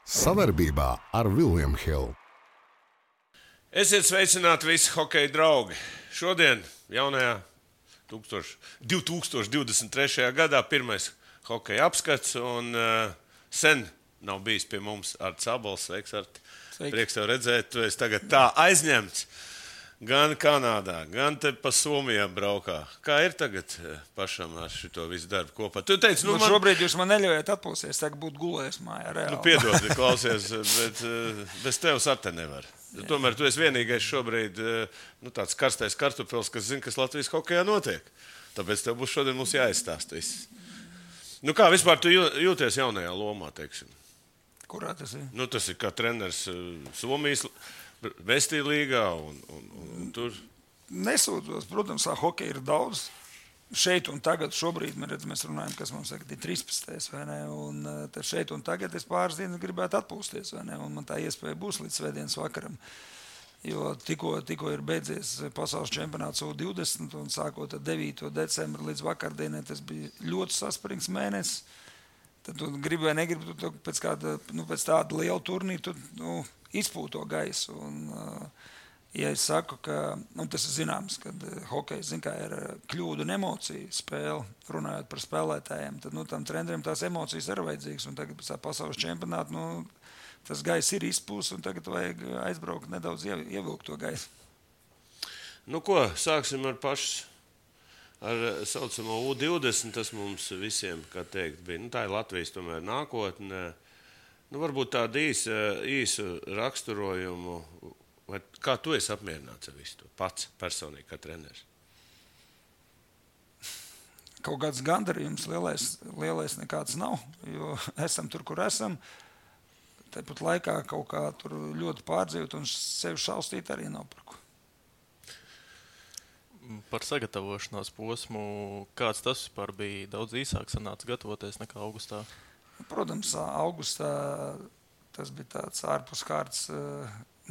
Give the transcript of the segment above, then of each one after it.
Savarbībā ar William Hill. Esiet sveicināti visi hokeja draugi. Šodien, jaunajā 2023. gadā, pirmais hokeja apskats. Sen nav bijis pie mums Arts Abols. Sveiks, Arti. Prieks tev redzēt. Tu esi tagad tā aizņemts. Gan Kanādā, gan te pa Somijā braukā. Kā ir tagad pašam ar šito visu darbu kopā? Tu teici, šobrīd jūs man neļaujat atpūsties, tagad būtu gulējis mājā reāli. Piedod, klausies, bet bez tevis ar te nevar. Tomēr tu esi vienīgais šobrīd tāds karstais kartupels, kas zina, kas Latvijas hokejā notiek. Tāpēc tev būs šodien mums jāizstāst viss. Kā vispār tu jūties jaunajā lomā, teiksim? Kurā tas ir? Tas ir kā treneris Somijas Vestī līgā un tur. Nesūdzos, protams, hokeja ir daudz. Šeit un tagad, šobrīd mēs runājam, kas mums ir 13. vai ne? Un tad šeit un tagad es pāris dienas gribētu atpūsties, vai ne? Un man tā iespēja būs līdz svētdienas vakaram. Jo tikko ir beidzies pasaules čempionāts U20 un sākot ar 9. decembru līdz vakardienai, tas bija ļoti saspringts mēnesis. Tad tu gribi vai negribi, tu pēc tāda liela turnīra, tu izpūto gaisu. Un, ja es saku, ka tas ir zināms, kad hokejs ir kļūdu un emociju spēle, runājot par spēlētājiem, tad tam treneriem tās emocijas ir vajadzīgas. Un tagad pēc tā pasaules čempionāta tas gaiss ir izpūs, un tagad vajag aizbraukt nedaudz ievilkt to gaisu. Sāksim ar pašu. Ar saucamo U20 tas mums visiem, kā teikt, bija. Tā ir Latvijas tomēr nākotne. Varbūt tādu īsu raksturojumu. Vai kā tu esi apmierināts ar visu to pats personīgi kā treneris? Kaut kāds gandarījums lielais nekāds nav, jo esam tur, kur esam. Tāpat laikā kaut kā tur ļoti pārdzīvot un sevi šaustīt arī nav par ko. Par sagatavošanās posmu, kāds tas vispār bija? Daudz īsāk sanāca gatavoties nekā augustā? Protams, augustā tas bija tāds ārpuskārtas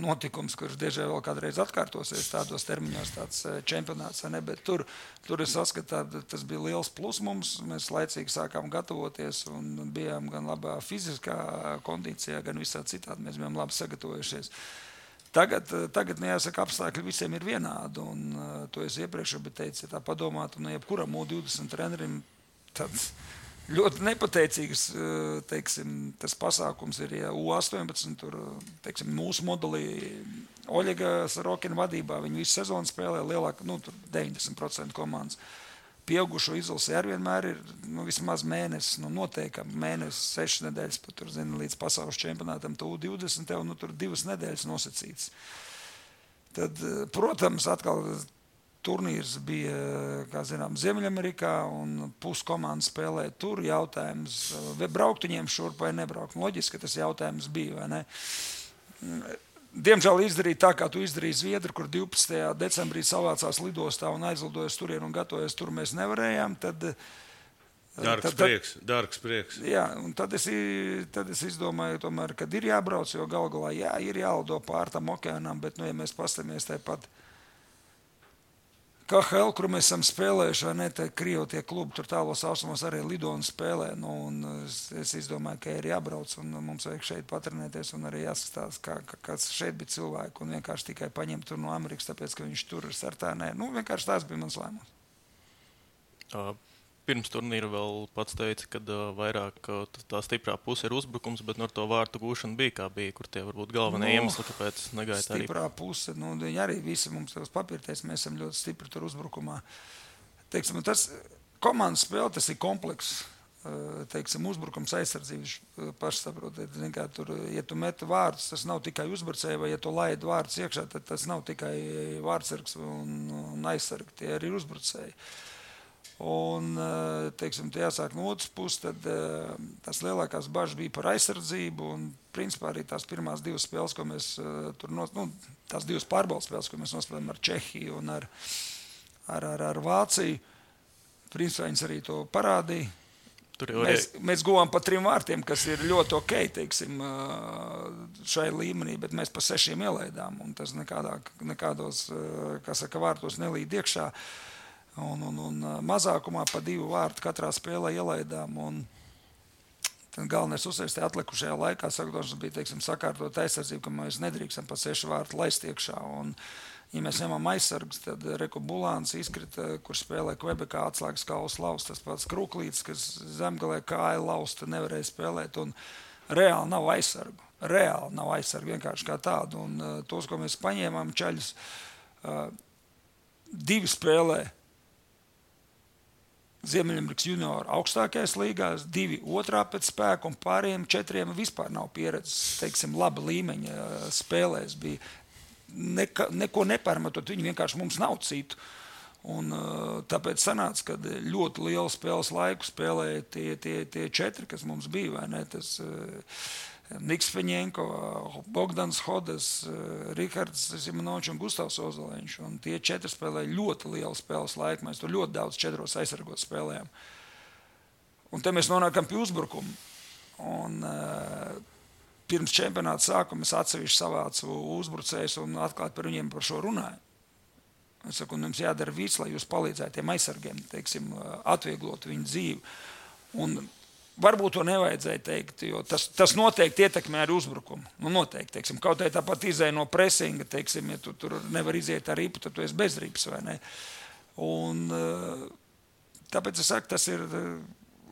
notikums, kurš diežai vēl kādreiz atkārtosies tādos termiņos, tāds čempionāts, ne? Bet tur es saskatu, tas bija liels plus mums. Mēs laicīgi sākām gatavoties un bijām gan labā fiziskā kondīcijā, gan visā citādi. Mēs bijām labi sagatavojušies. Tagad jāsaka, apstākļi visiem ir vienādi, un to es iepriekš teicu, ja tā padomātu, jebkuram U20 trenerim tāds ļoti nepateicīgs, tas pasākums ir, ja U18, tur, mūsu modelī Oļega Sarokina vadībā, viņi visu sezonu spēlē lielāk, tur 90% komandas. Pieaugušo izlasē arī vienmēr ir vismaz mēnesis, noteikam mēnesis, 6 nedēļas, pat tur, līdz pasaules čempionātam, U20, un tur 2 nedēļas nosacīts. Tad, protams, atkal turnīrs bija, kā zinām, Ziemeļamerikā, un puskomandas spēlē tur. Jautājums, vai braukt viņiem šurp vai nebraukt. Loģiski, ka tas jautājums bija, vai ne? Diemžēl izdarīja tā, kā tu izdarīji Zviedri, kur 12. decembrī savācās lidostā un aizlidojas turien un gatavojas tur mēs nevarējām. Dārgs prieks. Jā, un tad es izdomāju, tomēr, kad ir jābrauc, jo galu galā ir jālido pār tam okeānam, bet, ja mēs pastamies tāpat KHL, kur mēs esam spēlējuši, vai ne, Krievu tie klubi tur tālos austrumos arī lido un spēlē. Un es izdomāju, ka ir jābrauc un mums vajag šeit patrenēties un arī jāskatās, kāds šeit bija cilvēki un vienkārši tikai paņemt tur no Amerikas, tāpēc, ka viņš tur ir startā. Vienkārši tās bija mans lēmums. Pirms turnīra vēl pats teica, ka vairāk tā stiprā puse ir uzbrukums, bet ar to vārtu gūšanu bija, kā bija, kur tie varbūt galvenie iemesli, kāpēc negaita arī. Stiprā puse, viņi arī visi mums tos papirties, mēs esam ļoti stipri tur uzbrukumā. Tas komandas spēle, tas ir komplekss, uzbrukums aizsardzības paši saprotiet. Tur, ja tu met vārdus, tas nav tikai uzbrucēji, vai ja tu laid vārdus iekšā, tad tas nav tikai vārdsargs un aizsargi, tie arī ir uzbrucēji. Un, jāsāk no otras puses, tad tās lielākās bažas bija par aizsardzību un, principā, arī tās pirmās 2 spēles, ko mēs tur tās 2 pārbaudas spēles, ko mēs nospēlējām ar Čehiju un ar Vāciju, principā viņas arī to parādīja. Mēs guvām pa 3 vārtiem, kas ir ļoti ok, šai līmenī, bet mēs pa 6 ielaidām, un tas nekādos, vārtos nelīd iekšā. Un mazākumā pa 2 vārtu katrā spēlē ielaidām. Tad galvenais uzsvērts atlikušajā laikā, sagatavošanas bija, teiksim, sakārtot aizsardzību, ka mēs nedrīkstam pa 6 vārtu laist iekšā. Un, ja mēs ņemam aizsargus, tad Reku Bulāns izkrita, kurš spēlē Kvebekā atslēgas kaulas lausta. Tas pats Kruklīts, kas zemgalē kāja lausta, nevarēja spēlēt. Un reāli nav aizsargu. Reāli nav aizsargu vienkārši kā tādu. Un tos, ko mēs paņēmām čaļus, 2 spēlē Ziemeļamerikas junioru augstākajās līgās, 2 otrā pēc spēka un pārējiem 4 vispār nav pieredzes, teiksim, laba līmeņa spēlēs. Bija neko nepārmetot, viņi vienkārši mums nav citu. Un tāpēc sanāca, ka ļoti lielu spēles laiku spēlēja tie 4, kas mums bija, vai ne? Tas Niks Feņenko, Bogdans Hodas, Rihards Zimanovičs un Gustavs Ozoliņš. Un tie 4 spēlēja ļoti lielu spēles laiku. Mēs tur ļoti daudz 4 aizsargot spēlējām. Un te mēs nonākam pie uzbrukuma. Un pirms čempionāta sākuma es atsevišķi savācu uzbrucējus un atklāt par viņiem par šo runāju. Es saku, jums jādara viss, lai jūs palīdzētu tiem aizsargiem, teiksim, atvieglot viņu dzīvi. Un varbūt to nevajadzēja teikt, jo tas noteikti ietekmē arī uzbrukumu. Nu, noteikti, teiksim, kaut arī tāpat izēja no presinga, teiksim, ja tu tur nevar iziet ar ripu, tad tu esi bez ripas, vai ne? Un tāpēc es saku, tas ir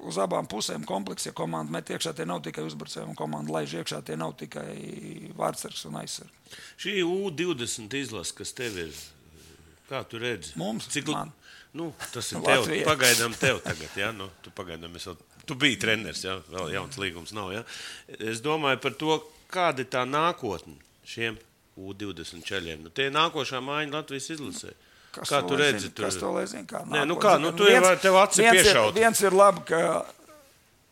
uz abām pusēm kompleks, ja komanda met iekšā, tie nav tikai uzbrucēji, un komanda laiž iekšā, tie nav tikai vārdsargs un aizsargs. Šī U20 izlase, kas tev ir, kā tu redzi? Mums? Man. Nu, tas ir tev, pagaidām tev tagad, ja? Nu, tu biji treneris, ja? Vēl jauns līgums nav, ja? Es domāju par to, kāda ir tā nākotne šiem U20 čaļiem. Nu, tie nākošā mājiņa Latvijas izlasē. Kā tu redzi? Kas to lai zina? Kā nē, nu kā, nu tu tev aci piešaut. Viens ir labi, ka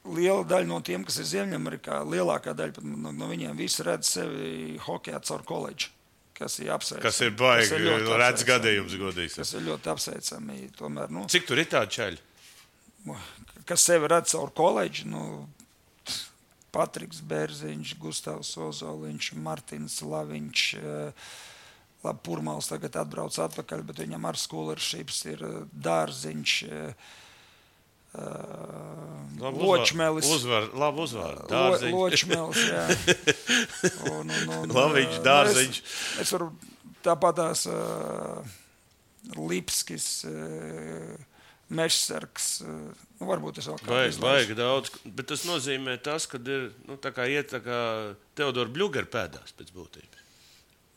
liela daļa no tiem, kas ir Ziemeļamerikā, lielākā daļa no viņiem visi redz sevi hokejā caur koledžu. Kas ir apsveicami. Kas ir baigi, redz gadījums godīgs. Kas ir ļoti apsveicami. Tomēr, nu, cik tur ir tādi čaļi? Kas sevi redz caur koledžu, Patriks Bērziņš, Gustavs Ozoliņš, Martins Laviņš, labi, Purmals tagad atbrauc atpakaļ, bet viņam ar scholarship ir Dārziņš, Ločmelis. Labi uzvar. Dārziņš. Ločmelis, jā. Laviņš, Dārziņš. Es varu tāpatās Lipskis, Mežsargs, varbūt es vēl kādu izlaišu. Vajag daudz, bet tas nozīmē tas, ka ir, tā kā iet tā kā Teodora Bļugera pēdās pēc būtības.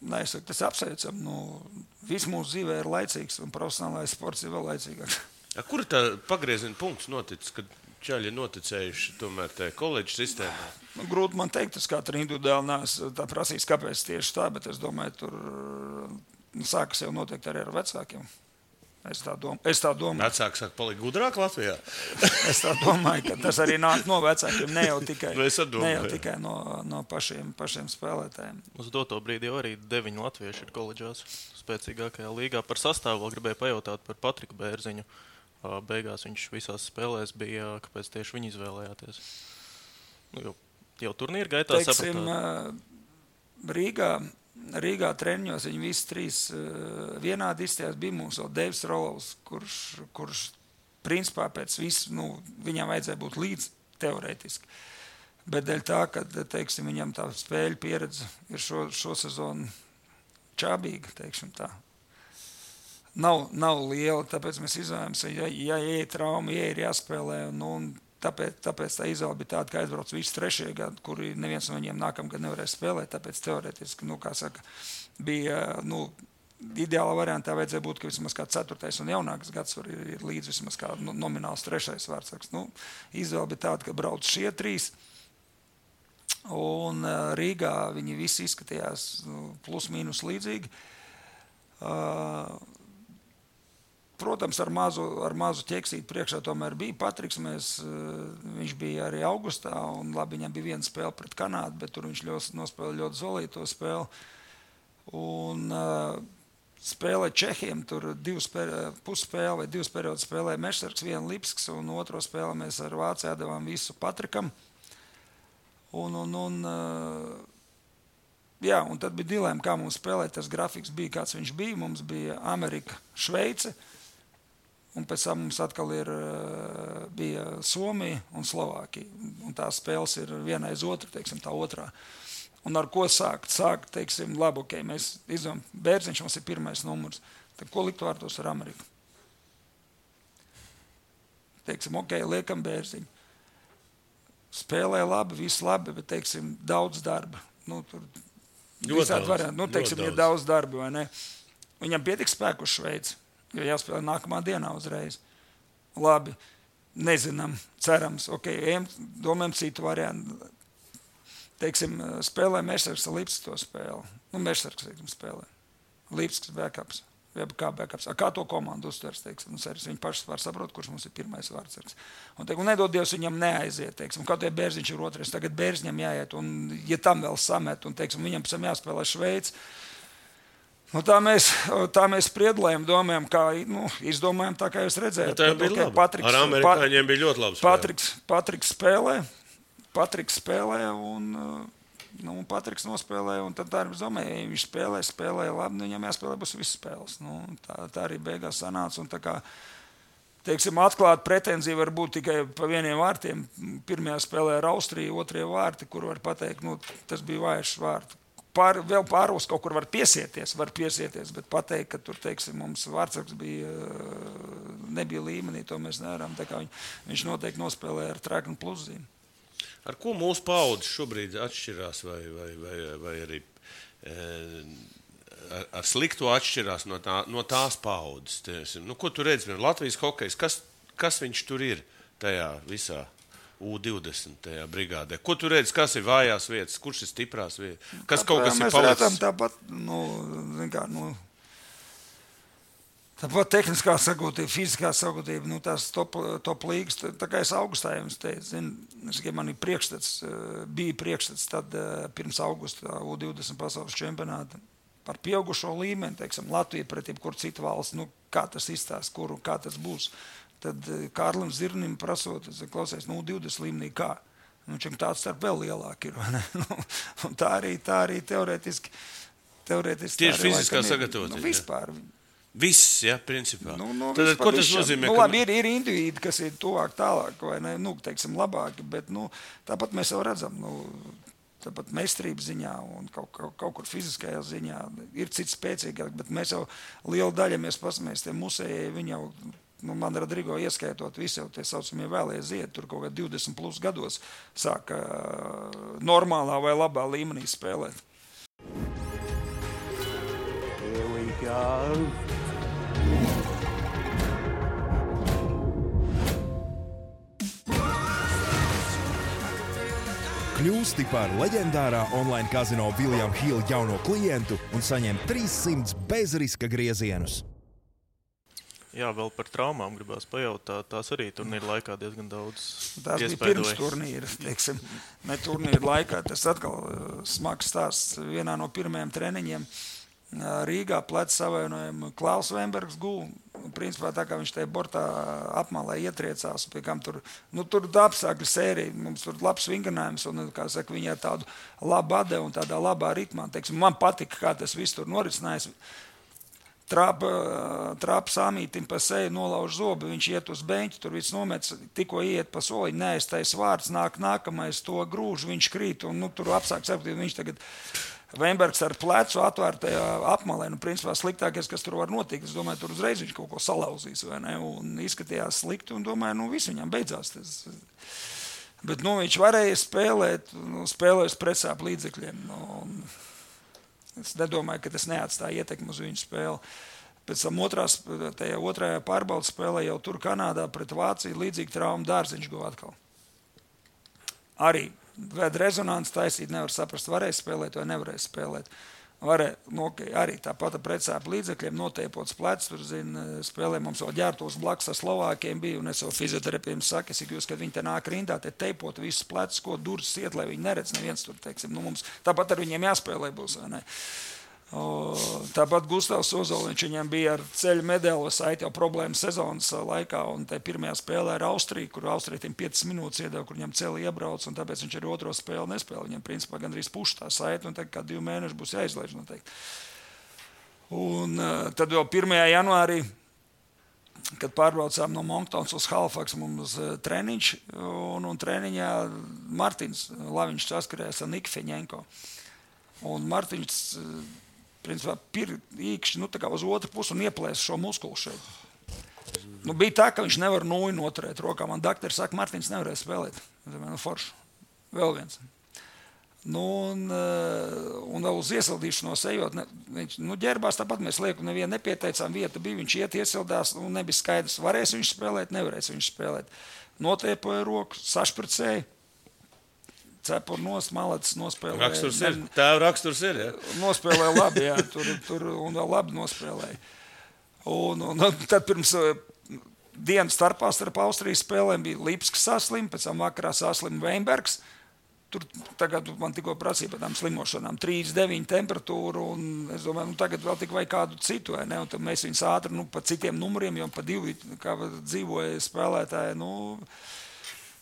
Nē, es saku, tas apsveicam. Viss mūsu dzīvē ir laicīgs un profesionālais sports ir vēl laicīgāks. Kur ir tā pagrieziena punkts noticis, kad čaļi ir noticējuši tomēr tajā koledžu sistēmā? Grūti man teikt, es katru individuāli neesmu tā prasījis, kāpēc tieši tā, bet es domāju, tur sākas jau noteikti arī ar vecākiem. Es tā domāju. Vecāki saka, paliek gudrāk Latvijā? Es tā domāju, ka tas arī nāk no vecākiem, ne jau tikai no pašiem spēlētājiem. Uz doto brīdi jau arī 9 latvieši ir koledžās spēcīgākajā līgā. Par sastāvu vēl gribēju pajautāt par Patriku Bērziņu. Beigās viņš visās spēlēs bija, kāpēc tieši viņi izvēlējāties? Jau turnīra gaitā sapratāt. Rīgā treniņos viņi visi 3 vienādi izstājās. Bija mums vēl Deivs Rolovs, kurš principā pēc visu, viņam vajadzēja būt līdz teorētiski. Bet dēļ tā, ka, teiksim, viņam tā spēļu pieredze ir šo sezonu čābīga, teiksim tā. Nav liela, tāpēc mēs izvēlamies, ja ir trauma, ja ir jāspēlē, un tāpēc tā izvēle bija tāda, ka aizbrauc visi 3. gadi, kuri neviens no viņiem nākamgad nevarēja spēlēt, tāpēc teorētiski, kā saka, bija, ideāla variantā vajadzēja būt, ka vismaz kā 4. un jaunākas gads ir līdz vismaz kā nomināls 3. vārdsargs. Izvēle bija tāda, ka brauc šie 3, un Rīgā viņi visi izskatījās plus mīnus līdzīgi. Protams, ar mazu ķeksīti priekšā tomēr bija Patriks. Viņš bija arī augustā, un labi, viņam bija viena spēle pret Kanādu, bet tur viņš nospēlēja ļoti zolīto spēli. Un spēlē Čehiem, tur 2 pusspēle vai 2 periodus spēlēja Mežsargs, 1 Lipsks, un otro spēli mēs ar Vāciju devām visu Patrikam. Un tad bija dilēma, kā mums spēlēt. Tas grafiks bija, kāds viņš bija. Mums bija Amerika, Šveice. un pēc tam mums atkal bija Somija un Slovākija. Un tās spēles ir viena aiz otru, teiksim, tā otrā. Un ar ko sākt? Sākt, teiksim, labi, ok, mēs izdomājam, Bērziņš mums ir pirmais numurs. Tad ko likt vārtos ar Ameriku? Teiksim, ok, liekam Bērziņu. Spēlē labi, viss labi, bet, teiksim, daudz darba. Nu, tur visādi varianti. Nu, teiksim, ir daudz darba, vai ne? Viņam pietiks spēku uz Šveici, jo jāspēlē nākamā dienā uzreiz. Labi, nezinām, cerams, ok, domājam citu variantu. Teiksim, spēlē Mešsargs ar Lipsku to spēli. Nu, Mešsargs, teiksim, spēlē. Lipsks backups. Kā backups. Kā to komandu uztvers, teiksim, viņi paši var saprot, kurš mums ir pirmais vārdsargs. Un, teiksim, nedod Dievs viņam neaiziet, teiksim, kā to Bērziņš ir otrais, tagad Bērziņam jāiet, un ja tam vēl samet, un, teiksim, viņam pēc tam jāspēlē Šveici. Nu, tā mēs spriedlējam, domājam, kā, nu, izdomājam tā, kā jūs redzējāt. Tā bija labi. Ar amerikāņiem bija ļoti labi spēle. Patriks spēlē, un Patriks nospēlē, un tad tā arī domāja, ja viņš spēlē labi, nu, viņam jāspēlē būs visas spēles. Nu, tā arī beigās sanāca, un tā kā, teiksim, atklāt pretenzija var būt tikai pa vieniem vārtiem. Pirmajā spēlē ar Austriju, otrie vārti, kur var pateikt, nu, tas bija vājš vārti. Vēl pāros kaut kur var piesieties, bet pateikt, ka tur, teiksim, mums vārdsargs nebija līmenī, to mēs nevaram. Tā kā viņš noteikti nospēlē ar treknu pluszīm. Ar ko mūsu paudze šobrīd atšķirās, vai arī ar slikto atšķirās no tās paudzes? Nu, ko tu redzi? Latvijas hokejs, kas viņš tur ir tajā visā U20 tajā brigādē? Ko tu redzi, kas ir vājās vietas, kurš ir stiprās vietas? Kas kaut kas ir palicis? Mēs redzam tāpat, tāpat tehniskā sagūtība, fiziskā sagūtība, nu, tās top līgas, tā kā es augustā jums teicu, man ir bija priekšstats tad pirms augusta U20 pasaules čempionāta par pieaugušo līmeni, teiksim, Latvija pret jebkuru citu valsts, nu, kā tas izstās, kā tas būs. Tad Kārlim Zirnim prasot, klausies, nu, 20 līmenī kā? Nu, čem tāds starp vēl lielāk ir, vai ne? Un tā arī teorētiski. Tieši fiziskā sagatavotība. Nu, vispār. Viss, ja, principā. Tad, ko tas nozīmē? Nu, labi, ir indivīdi, kas ir tuvāk, tālāk, vai ne, nu, teiksim, labāki, bet, nu, tāpat mēs jau redzam, nu, tāpat meistarības ziņā un kaut kur fiziskajā ziņā ir cits spēcīgāk, bet mēs jau lielu daļu, mēs pasamies, tie musējai, viņi jau, nu, man Rodrigo ieskaitot, visi jau tie saucamie vēlēja ziedi, tur kaut kā 20 plus gados sāka normālā vai labā līmenī spēlēt. Here we go. Kļūsti par leģendārā online kazino William Hill jauno klientu un saņem 300 bezriska griezienus. Jā, vēl par traumām gribās pajautāt. Tās arī turnīra laikā diezgan daudz tās bija pirms turnīra, teiksim. Ne turnīra laikā, tas atkal smags stāsts. Vienā no pirmajiem treniņiem Rīgā pleca savainojumu Klaus Vembergs gūl. Principā tā kā viņš tajā bortā apmalē ietriecās, pie kam tur apsākļu sērija, mums tur labs vingrinājums, un, kā saka, viņi ar tādu labu ade un tādā labā ritmā. Teiksim, man patika, kā tas viss tur norisinājās. Trāpa Samītim pa seju, nolauž zobu, viņš iet uz beņķi, tur viss nomets, tikko iet pa soliņu, neaiztais vārds, nākamais to grūž, viņš krīt, un tur apsāk sapratīt, viņš tagad Vembergs ar plecu atvērtajā apmalē, nu, principā sliktākais, kas tur var notikt, es domāju, tur uzreiz viņš kaut ko salauzīs, vai ne, un izskatījās slikti, un domāju, nu, viss viņam beidzās tas. Bet, nu, viņš varēja spēlēt, spēlēs pretsāp līdzekļiem, un es nedomāju, ka tas neatstāja ietekmi uz viņu spēli. Pēc tam otrajā pārbaudas spēlē jau tur Kanādā pret Vāciju līdzīgi traumu Dārziņš guva atkal. Arī vēd rezonanci taisīt, nevar saprast, varēja spēlēt vai nevarēja spēlēt. Arī tāpat pretsāp līdzekļiem, noteipots plecs, tur, spēlē mums vēl ģērtos blakus ar Slovākiem bija, un es jau fizioterapiem saku, kad viņi te nāk rindā, te teipot visus plecus, ko durvis iet, lai viņi neredz neviens tur, teiksim, nu mums tāpat ar viņiem jāspēlē būs, vai ne? Tāpat Gustavs Ozoliņš, viņam bija ar ceļu medaļu saiti jau problēmas sezonas laikā, un te pirmajā spēlē ar Austriju, kur Austrija 5 minūtes iedeva, kur viņam celi iebrauc, un tāpēc viņš arī otro spēli nespēlē. Viņam principā gandrīz puš tā saiti, un tagad kā 2 mēneši būs jāizlaiž noteikti. Un tad jau 1. janvārī kad pārbraucām no Monktons uz Halifax, mums treniņš, un treniņā Martins Laviņš saskarējās ar Niku Feņenko. Un Martins, principā, īkšķi, tā kā uz otru pusi un ieplēs šo muskulu šeit. Bija tā, ka viņš nevar nūju noturēt rokā. Man daktari saka, Martins nevarēja spēlēt. Forši. Vēl viens. Un vēl uz iesildīšanos ejot, viņš ģērbās tāpat, mēs lieku nevienu nepieteicām, vieta bija, viņš iesildās, un nebija skaidrs, varēs viņš spēlēt, nevarēs viņš spēlēt. Notiepoja roku, sašpricēja, cepur nost, malacis nospēlēja. Raksturs ir, tēva raksturs ir, ja? Nospēlēja labi, jā, tur un vēl labi nospēlēja. Un tad pirms dienas starp Austrijas spēlēm bija Lipskis saslim, pēc tam vakarā saslim Veinbergs. Tur tagad man tikko prasīja par tām slimošanām 39 temperatūru, un es domāju, tagad vēl tik vai kādu citu, vai ne? Un tad mēs viņus ātri, pa citiem numuriem, jo pa 2, kā dzīvoja spēlētāji,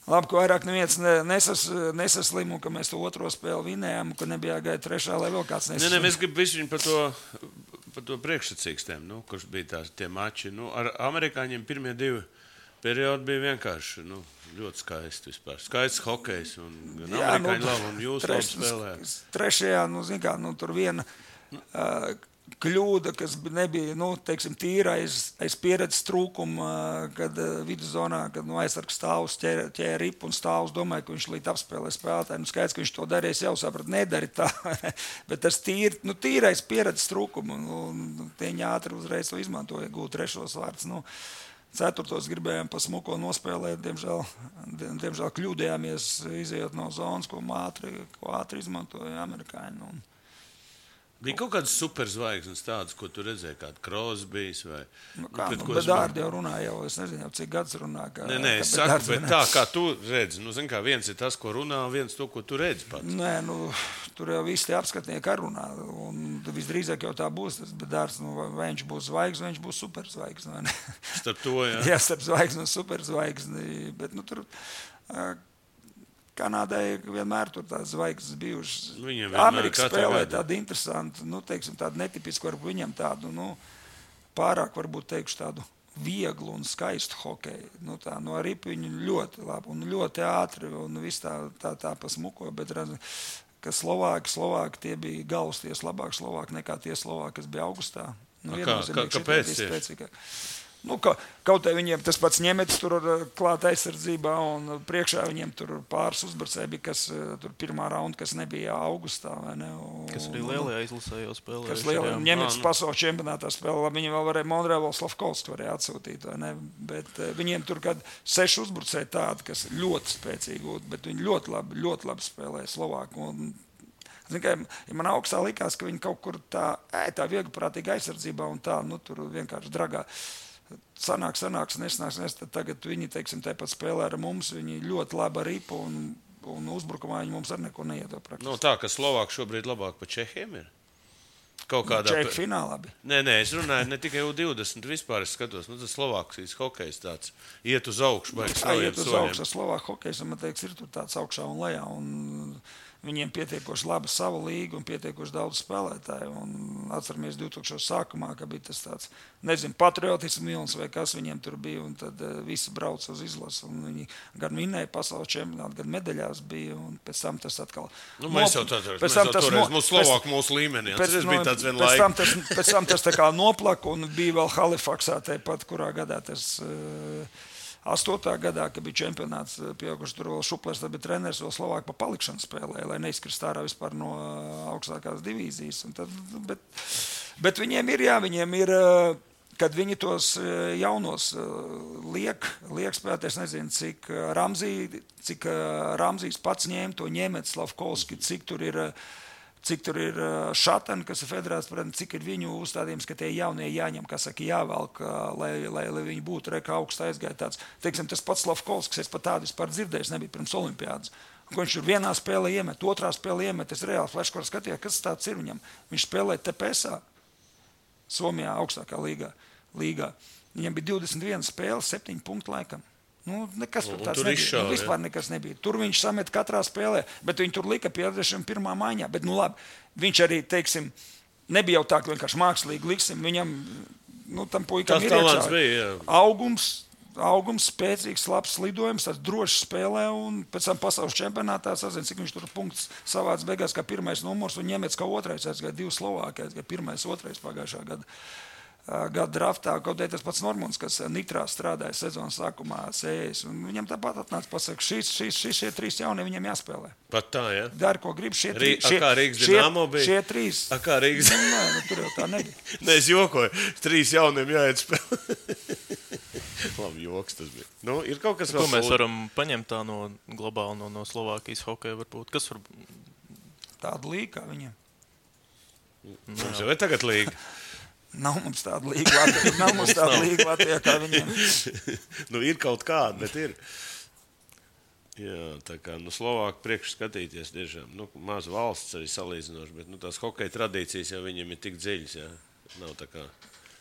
labi, ka vairāk neviens nesaslim, un ka mēs to otro spēli vinējām, un ka nebija jāgaida trešā, lai vēl kāds nesaslim. Nē, mēs gribam visu par to priekšsacīkstēm, kurš bija tie mači. Ar amerikāņiem pirmie 2 periodi bija vienkārši, ļoti skaisti vispār. Skaists hokejs, un gan amerikāņi labi, un jūs labi spēlējāt. Trešajā, tur viena kļūda, kas nebija, teiksim, tīra aiz pieredzes trūkuma, kad viduszonā, kad aizsargs stāvus ķēra ripu un stāvus, domāju, ka viņš līdz apspēlē spēlētāji. Skaidrs, ka viņš to darīs, jau saprat, nedari tā, bet tas tīrais pieredzes trūkuma, un tieņi ātri uzreiz to izmantoja, gūt trešos vārds. Ceturtos gribējām pa smuko nospēlēt, diemžēl kļūdējāmies, izejot no zonas, ko ātri izmantoja amerikāņi. Bija kaut kādas superzvaigznes tādas, ko tu redzēji, kāda Crosbys vai... Bet Dārdi jau runā, es nezinu, cik gads runā. Nē, es saku, bet tā, kā tu redzi. Viens ir tas, ko runā, viens to, ko tu redzi pats. Nē, tur jau visi tie apskatnieki ar runā, un visdrīzāk jau tā būs, bet Dārds, vai viņš būs zvaigzne, vai viņš būs superzvaigzne, vai ne? Starp to, jā. Jā, starp zvaigzni un superzvaigzni, bet, tur... Kanādai vienmēr tur tās zvaigznes bijušas. Amerika spēlē tādu interesantu, teiksim, tādu netipisku, varbūt viņam tādu, pārāk, varbūt teikšu, tādu vieglu un skaistu hokeju. Ar ripu viņi ļoti labi un ļoti ātri un viss tā pasmuko, bet ka Slovāki tie bija galvasties labāk Slovāki nekā tie Slovāki, kas bija augustā. Kāpēc tieši? Kaut arī viņiem tas pats ņemetis tur klāt aizsardzībā, un priekšā viņiem tur pāris uzbrucēji bija, kas tur pirmā raunda, kas nebija augustā, vai ne? Kas arī lielajā izlasē jau spēlēja. Kas lielajā ņemetis pasaules čempionātā spēlē, viņi vēl varēja Monreāls Slavkovs varēja atsūtīt, vai ne? Bet viņiem tur kad 6 uzbrucēji tādi, kas ļoti spēcīgi, bet viņi ļoti labi spēlēja Slovāku. Ja man augstā likās, ka viņi kaut kur tā vieglprātīga aizsardzībā un tā, tur vienkārši dragā. Sanāks, nesnāks, tad tagad viņi, teiksim, tāpat spēlē ar mums, viņi ļoti labi ar ripu un uzbrukumā viņi mums ar neko neiedod praktiski. Tā, ka Slovāki šobrīd labāk pa Čehiem ir? Kaut kādā... Čehi finālā bija. Nē, es runāju ne tikai U20, vispār es skatos, tas Slovākijas hokejs tāds iet uz augšu, baigs saviem soļiem. Iet uz augšu, Slovāku hokejs, man teiks, ir tur tāds augšā un lejā, un viņiem pietiekoši laba sava līga un pietiekoši daudz spēlētāju. Un atceramies 2000 sākumā, ka bija tas tāds, nezinu, patriotismu milns vai kas viņiem tur bija, un tad visi brauc uz izlasu, un viņi gan vinēja pasaules čempionātu, gan medaļās bija, un pēc tam tas atkal... Mēs jau toreiz mūsu Slovāku mūsu līmenī, tas bija tāds vien laika. Pēc tam tas tā kā noplaka, un bija vēl Halifaksā tāpat, kurā gadā tas... 8. gadā, kad bija čempionāts pieauguši, tur vēl Šuplers, tad bija treneris, vēl Slovāki pa palikšanu spēlēja, lai neizkrist ārā vispār no augstākās divīzijas. Bet viņiem ir, kad viņi tos jaunos liek spēlēt, es nezinu, cik Ramzijs pats ņēma to ņēmēt Slavkovski, cik tur ir Šatani, kas ir federāts, cik ir viņu uzstādījums, ka tie jaunie jāņem, kā saka, jāvelk, lai viņi būtu reka augstu aizgāja tāds. Teiksim, tas pats Slavkovskis, es pat tādu vispār dzirdējis, nebija pirms olimpiādas. Ko viņš tur vienā spēlē iemet, otrā spēlē iemet, es reāli flashkorā skatījā, kas tāds ir viņam. Viņš spēlēja TPSā, Somijā augstākā līgā. Viņam bija 21 spēles, 7 punktu laikam. Nekas tur tāds nebija. Vispār nekas nebija. Tur viņš samet katrā spēlē, bet viņi tur lika 51. maiņā. Bet, labi, viņš arī, teiksim, nebija jau tā, ka vienkārši mākslīgi liksim. Viņam tam puikam Tas ir talants iekšā. bija, jā. Augums, spēcīgs, labs lidojums, tāds drošs spēlē, un pēc tam pasaules čempionātā sazina, cik viņš tur punkts savāds beigās kā pirmais numurs, un ņemets kā otrais, kā 2 Slovākija, kā pirmais, otrais pagājušā gada draftā, kaut arī tas pats Normunds, kas Nitrā strādāja sezonas sākumā sējais, un viņam tāpat atnāca pasaka, šie 3 jaunie viņam jāspēlē. Pat tā, jā? Dari, ko grib, šie 3. Kā Rīgas Dinamo bija? Šie 3. Kā Rīgas? Nē, tur jau tā nebija. Nē, es jokoju, 3 jauniem jāiet spēlē. Labi, joks tas bija. Nu, ir kaut kas vēl. Ko mēs varam paņemt tā no globāli no Slovākijas hokeja varbūt? Kas var... Tāda līga kā viņiem. Mums jau ir tagad līga. Nav mums tāda līga Latvijā kā viņiem. Nu, ir kaut kāda, bet ir. Jā, tā kā Slovāki priekš skatīties tiešām. Maz valsts arī salīdzinoši, bet tās hokeja tradīcijas jau viņiem ir tik dziļas, jā. Nav tā kā...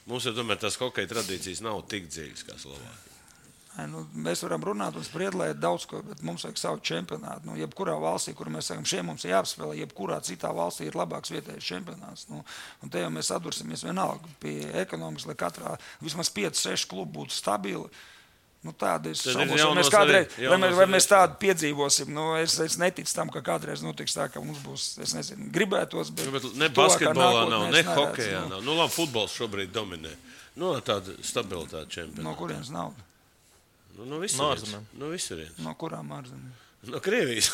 Mums jau tomēr tās hokeja tradīcijas nav tik dziļas kā Slovāki. Mēs varam runāt un spriedlēt daudz ko, bet mums vajag savu čempionātu. Jebkurā valstī, kur mēs sakam, šiem mums ir jāapspēlē, jebkurā citā valstī ir labāks vietējais čempionāts. Un te jau mēs sadursimies vienalga pie ekonomikas, lai katrā vismaz 5-6 klubu būtu stabili. Tāda ir šaubos, vai mēs tādu piedzīvosim. Es neticu tam, ka kādreiz notiks tā, ka mums būs, es nezinu, gribētos, bet ne basketbolā nav, ne hokejā nav. Labi, futbols šobrīd dominē. Tāda stabilitāte čempionāta. No kurienes nauda? No visurienes. No kurām ārzemēm? No Krievijas.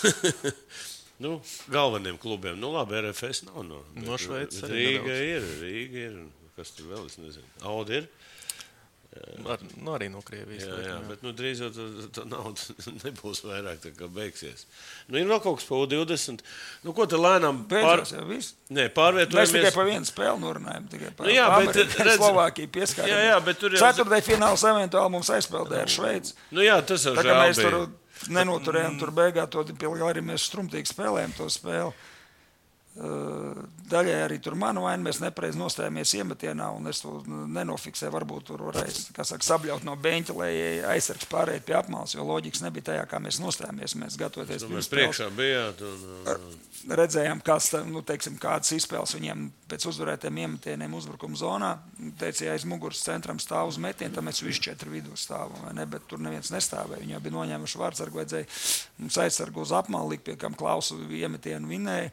Galveniem klubiem. Labi, RFS nav. No Šveices. Rīga ir. Kas tur vēl, es nezinu. Audi ir. Arī no Krievijas. Jā, bet drīz jau tā nauda nebūs vairāk, tā kā beigsies. Ir vēl kaut kas pa U20. Ko te lēnām Beidzās jau viss? Nē, pārvietojamies. Mēs tikai pa vienu spēli norunājam. Slovākija pieskatījām. Jā, bet tur jau... Ceturtdien fināls eventuāli mums aizspēldēja ar Šveici. Jā, tas jau žēl bija. Mēs tur nenoturējām, tur beigā to arī mēs strumtīgi spēlējam to spēli. Daļai arī tur manu vainu, mēs nepareizi nostājāmies iemetienā, un es to nenofiksēju, varbūt tur varēja, sabļaut no beņķa, lai aizsargs pārējot pie apmales, jo loģikas nebija tajā, kā mēs nostājāmies, mēs gatavoties pirms priekšā bijāt. Redzējām, kādas izspēles viņiem pēc uzvarētiem iemetieniem uzbrukuma zonā, teica, ja aiz muguras centram stāv uz metienu, tad mēs visi 4 vidū stāvam, vai ne, bet tur neviens nestāvēja, viņi jau bija noņēmuši vārdsargu, vajadzēja mums aizsargu uz apmali, pie kam Klausu iemetienu vinēja.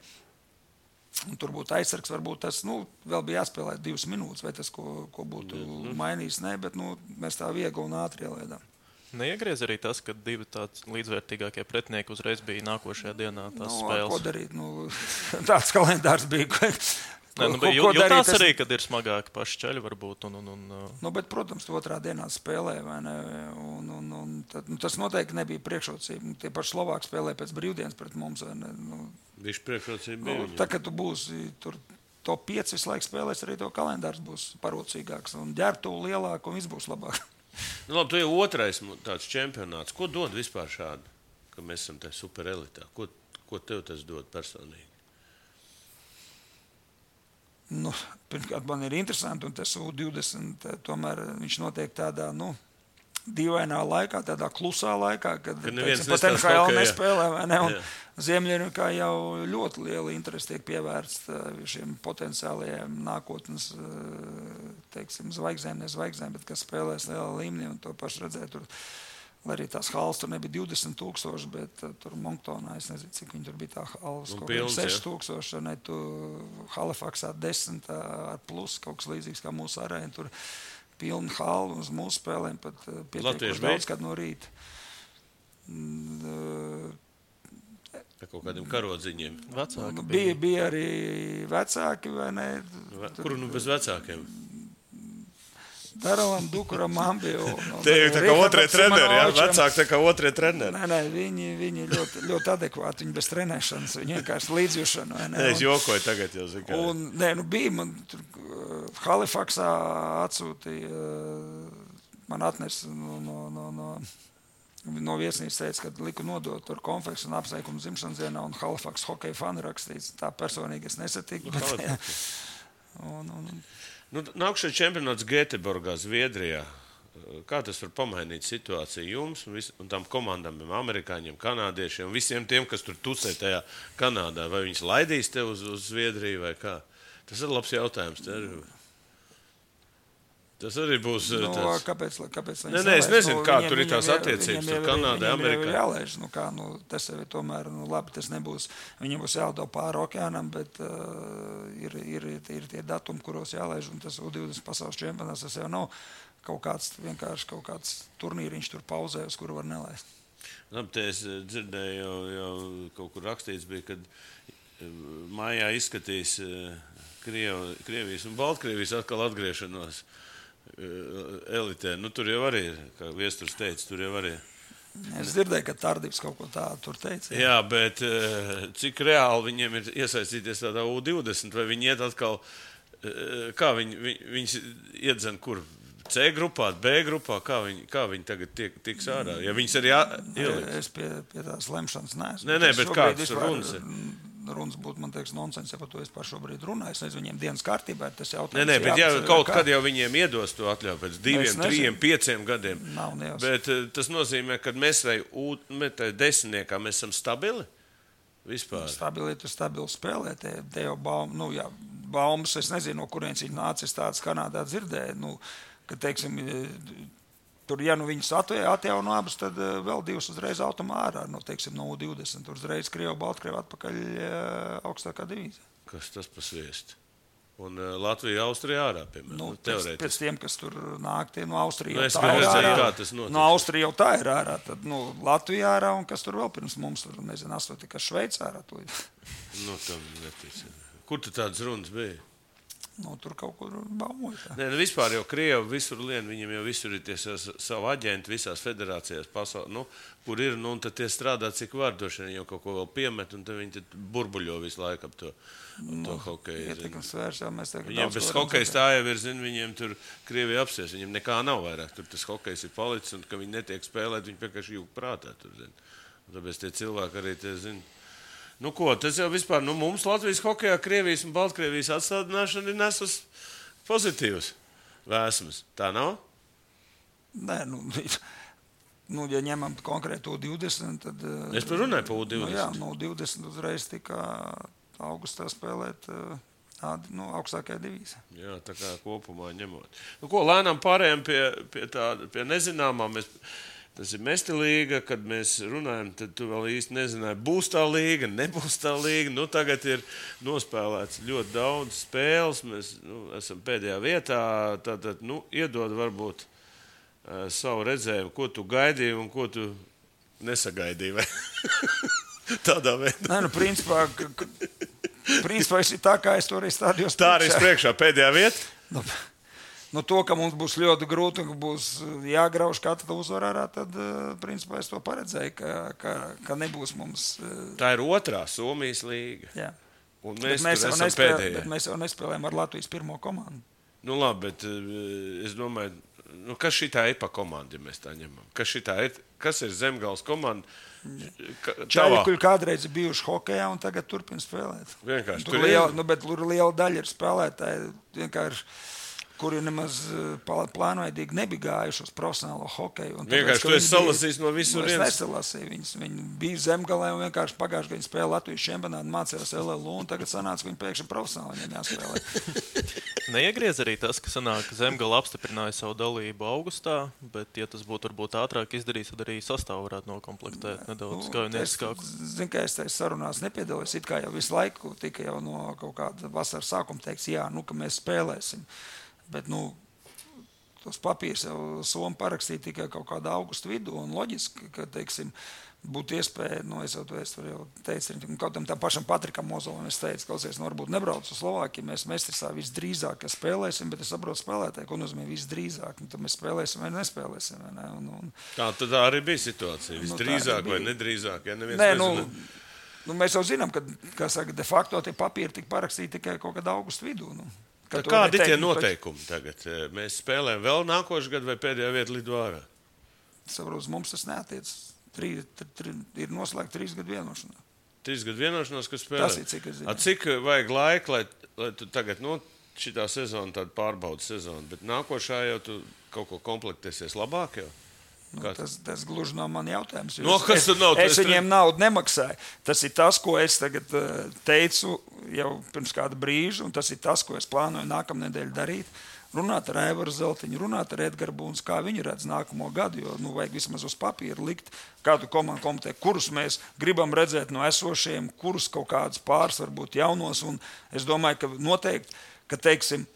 Un tur būtu aizsargs, varbūt tas vēl bija jāspēlē 2 minūtes, vai tas, ko būtu mainījis, ne, bet mēs tā viegli un ātri ielēdām. Neiegriez arī tas, ka 2 tāds līdzvērtīgākie pretinieki uzreiz bija nākošajā dienā tās spēles. Ko darīt? Tāds kalendārs bija. Jūtās arī, kad ir smagāki paši ceļi varbūt. Bet, protams, otrā dienā spēlē, vai ne? Tas noteikti nebija priekšrocība. Tie paši Slovāki spēlē pēc brīvdienas pret mums, vai ne? Viņš priekšrocība bija. Tā, kad tu būsi tur top 5 visu laiku spēlēs, arī to kalendārs būs parocīgāks un ģērbtuvu lielāk un viss būs labāk. Labi, tu jau otrais tāds čempionāts. Ko dod vispār šādu, ka mēs esam te superelitā? Ko tev tas dod personīgi? Pirmkārt, man ir interesanti, un tas U20 tomēr viņš notiek tādā, dīvainā laikā, tādā klusā laikā, kad pat NHL nespēlē, vai ne? Un Ziemeļamerikā jau ļoti liela interese tiek pievērsta šiem potenciālajiem nākotnes, zvaigznēm, ne zvaigznēm, bet kas spēlēs lielā līmenī, un to pašu redzēt tur. Lai arī tās halas tur nebija 20,000, bet tur Monctonā, es nezinu, cik viņi tur bija tā halas, kaut kā 6,000, ne, tu Halifaksā 10 ar plus, kaut kas līdzīgs kā mūsu arēna, tur pilna hala uz mūsu spēlēm, pat pietiekuši daudz, kad no rīta. Kaut kādiem karodziņiem. Vecāki bija arī vecāki, vai ne? Kuru bez vecākiem? Daralam, Dukuram, Ambiju. Tie ir tā kā otrie treneri, jā? Vecāki tā kā otrie treneri. Nē, viņi ļoti adekvāti, viņi bez trenēšanas, viņi vienkārši līdzjušana. Nē, es jokoju tagad jau zinu. Un, bija man tur Halifaksā atsūtīja, man atnes no viesnīcas teica, kad liku nodot tur konfeksu un apsveikumu dzimšanas dienā un Halifaksas hokeja fani rakstīts. Tā personīgi es nesatiku. Nākšais čempionāts Gēteborgā, Zviedrijā. Kā tas var pamainīt situāciju jums un tām komandām, amerikāņiem, kanādiešiem, visiem tiem, kas tur tusē tajā Kanādā? Vai viņus laidīs te uz Zviedriju vai kā? Tas ir labs jautājums. Tas arī būs tāds. Kāpēc Nē, es nezinu, kā tur ir tās attiecības ar Kanādu, Amerikā. Jālaiž, tas jau ir tomēr, labi, tas nebūs, viņiem būs jālido pāri okeānam, bet ir tie datumi, kuros jālaiž, un tas U20 pasaules čempionāts, tas jau nav kaut kāds turnīriņš tur pauzē, uz kuru var nelaist. Labi, te es dzirdēju, jau kaut kur rakstīts bija, kad mājā izskatīs Krievijas un Baltkrievijas atkal atgriešanos elitē. Tur jau arī ir, kā Viesturs teica, tur jau arī ir. Es dzirdēju, ka Tardivs kaut ko tādu tur teica. Jā, bet cik reāli viņiem ir iesaistīties tādā U20, vai viņi iet atkal, kā viņus iedzen kur? C grupā, B grupā, kā viņi tagad tiks ārā? Ja viņas arī ieliks? Es pie tās lemšanas neesmu. Nē, bet kāds runas ir? Runas būtu, man teiks, nonsens, ja par to es par šobrīd runāju. Es nezinu, viņiem dienas kārtībā ir tas jautājums. Nē, bet kaut kad jau viņiem iedos to atļauju pēc 2, 3, 5 gadiem. Nav nejaus. Bet tas nozīmē, ka mēs desmitniekā mēs esam stabili vispār. Stabili spēlē. Te jau baumas, es nezinu, no kurienes viņi nācis tāds Kanādā dzirdēja. Ka, teiksim, tur, ja viņus atjauno abus, tad vēl 2 uzreiz automā ārā. Teiksim, no U20, tur uzreiz Krievu, Baltkrievu atpakaļ augstākā divīzija. Kas tas pasviest? Un Latvija, Austrija ārā, piemēram, teorētiski. Pēc tiem, kas tur nāk, tie no Austrija jau tā ir ārā. No Austrija jau tā ir ārā. Tad Latvija ārā un kas tur vēl pirms mums, tur, nezinu, kas Šveica ārā. Tam netic. Kur tu tādas runas bija? Tur kaut kur baumoja. Nē, vispār jau Krievi visur lien, viņiem jau visur ir tie savu aģenti visās federācijās pasaulē, kur ir, un tad tie strādā cik var, droši vien jau kaut ko vēl piemet, un tad viņi burbuļo visu laiku ap to hokeju. Ietekmes vērš, jau mēs tagad viņiem bez hokejs tā jau ir, viņiem tur Krievija apsies, viņiem nekā nav vairāk, tur tas hokejs ir palicis, un ka viņi netiek spēlēt, viņi vienkārši jūg prātā tur, un tāpēc tie cilvēki arī tie zina. Tas jau vispār, mums Latvijas hokejā Krievijas un Baltkrievijas atstādināšana ir nesus pozitīvs vēsmas. Tā nav? Nē, ja ņemam konkrētu U20, tad... Es par runāju par U20. Jā, U20 uzreiz tika augustā spēlēt augstākajā divīzijā. Jā, tā kā kopumā ņemot. Lēnām pārējām pie nezināmā. Tas ir Mesti līga, kad mēs runājam, tad tu vēl īsti nezināji, būs tā līga, nebūs tā līga. Tagad ir nospēlēts ļoti daudz spēles, mēs esam pēdējā vietā, tātad, iedod varbūt savu redzējumu, ko tu gaidīji un ko tu nesagaidīji, vai tādā veidā. Nē, principā ir tā, kā es to arī stādījos. Tā arī priekšā pēdējā vieta? To, ka mums būs ļoti grūti un ka būs jāgrauž katra uzvara ārā, tad, principā, es to paredzēju, ka nebūs mums... Tā ir otrā Somijas līga. Jā. Un mēs esam pēdējā. Bet mēs jau nespēlējam ar Latvijas pirmo komandu. Labi, bet es domāju, kas šitā ir pa komandu, ja mēs tā ņemam? Kas ir Zemgales komanda? Čaļi, kuri kādreiz ir bijuši hokejā un tagad turpina spēlēt. Vienkārši. Bet liela daļa ir spēlētāji vienkārši... kuri nemaz plānveidīgi nebija gājuši uz profesionālo hokeju. Vienkārši tu esi salasījis no visur viens? Es nesalasīju. Viņi bija Zemgalē un vienkārši pagājuši, ka viņi spēlēja Latvijas čempionātu, mācījās LLU, un tagad sanāca, ka viņi pēkšņi profesionāli viņiem jāspēlē. Neiegriez arī tas, ka sanāk, Zemgala apstiprināja savu dalību augustā, bet, ja tas būtu varbūt ātrāk izdarījis, tad arī sastāvu varētu nokomplektēt nedaudz skaujnieciskāku. Zinu, ka es tajā sarunās nepiedalījos, it kā jau visu laiku tika jau no kaut kāda vasaras sākuma teiks, jā, ka mēs spēlēsim. Bet, tos papīrs jau Soma parakstīja tikai kaut kādā augusta vidū, un loģiski, ka, teiksim, būtu iespēja, es jau teicu, kaut tam pašam Patrikam Mozolam, es teicu, klausies, varbūt nebrauc uz Slovākiju, mēs Mestrisā visdrīzāk spēlēsim, bet es saprotu spēlētāji, ko nozīmē visdrīzāk, tad mēs spēlēsim vai nespēlēsim. Vai ne? Tā arī bija situācija, visdrīzāk vai nedrīzāk, ja neviens nezina. Mēs jau zinām, ka, kā saka, de facto tie papīri tika parakstīti tikai kaut kādā augusta vidū. Kādi ir tie noteikumi tagad? Mēs spēlējam vēl nākošu gadu vai pēdējā vieta lido ārā? Saprot, mums tas neatiec. Ir noslēgta 3 gadu vienošanās. 3 gadu vienošanās, kas spēlē? Tas ir, cik es zinu. Cik vajag laika, lai tu tagad, šitā sezona tāda pārbaudas sezona, bet nākošā jau tu kaut ko komplektēsies labāk jau? Tas gluži nav man jautājums. Es viņiem naudu nemaksāju. Tas ir tas, ko es tagad teicu jau pirms kāda brīža, un tas ir tas, ko es plānoju nākamnedēļ darīt. runāt ar Aivaru Zeltiņu, runāt ar Edgars Buns, kā viņi redz nākamo gadu, jo vajag vismaz uz papīra likt kādu komandu komitē, kurus mēs gribam redzēt no esošiem, kurus kaut kādus pāris varbūt jaunos, un es domāju, ka noteikti, ka teiksim,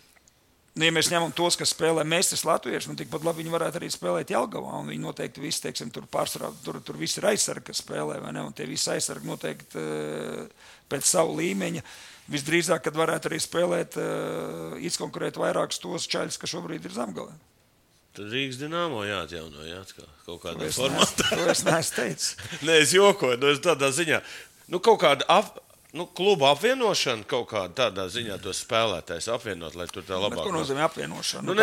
ja mēs ņemam tos, kas spēlē Mēstis latvieši, tikpat labi viņi varētu arī spēlēt Jelgavā, un viņi noteikti visi, teiksim, tur pārsvarā, tur visi ir aizsargi, kas spēlē, vai ne, un tie visi aizsargi noteikti pēc savu līmeņa. Visdrīzāk, kad varētu arī spēlēt, izkonkurēt vairākus tos čaļus, kas šobrīd ir Zemgalē. Tad Rīgas Dinamo jāatjauno, kaut kādā formātā. To es neesmu teicis. Nē, es jokoju, es tādā ziņā. Kaut kāda kluba apvienošana kaut kādā tādā ziņā tos spēlētājs apvienot, lai tur tā labāk. Ko nozīmē apvienošana?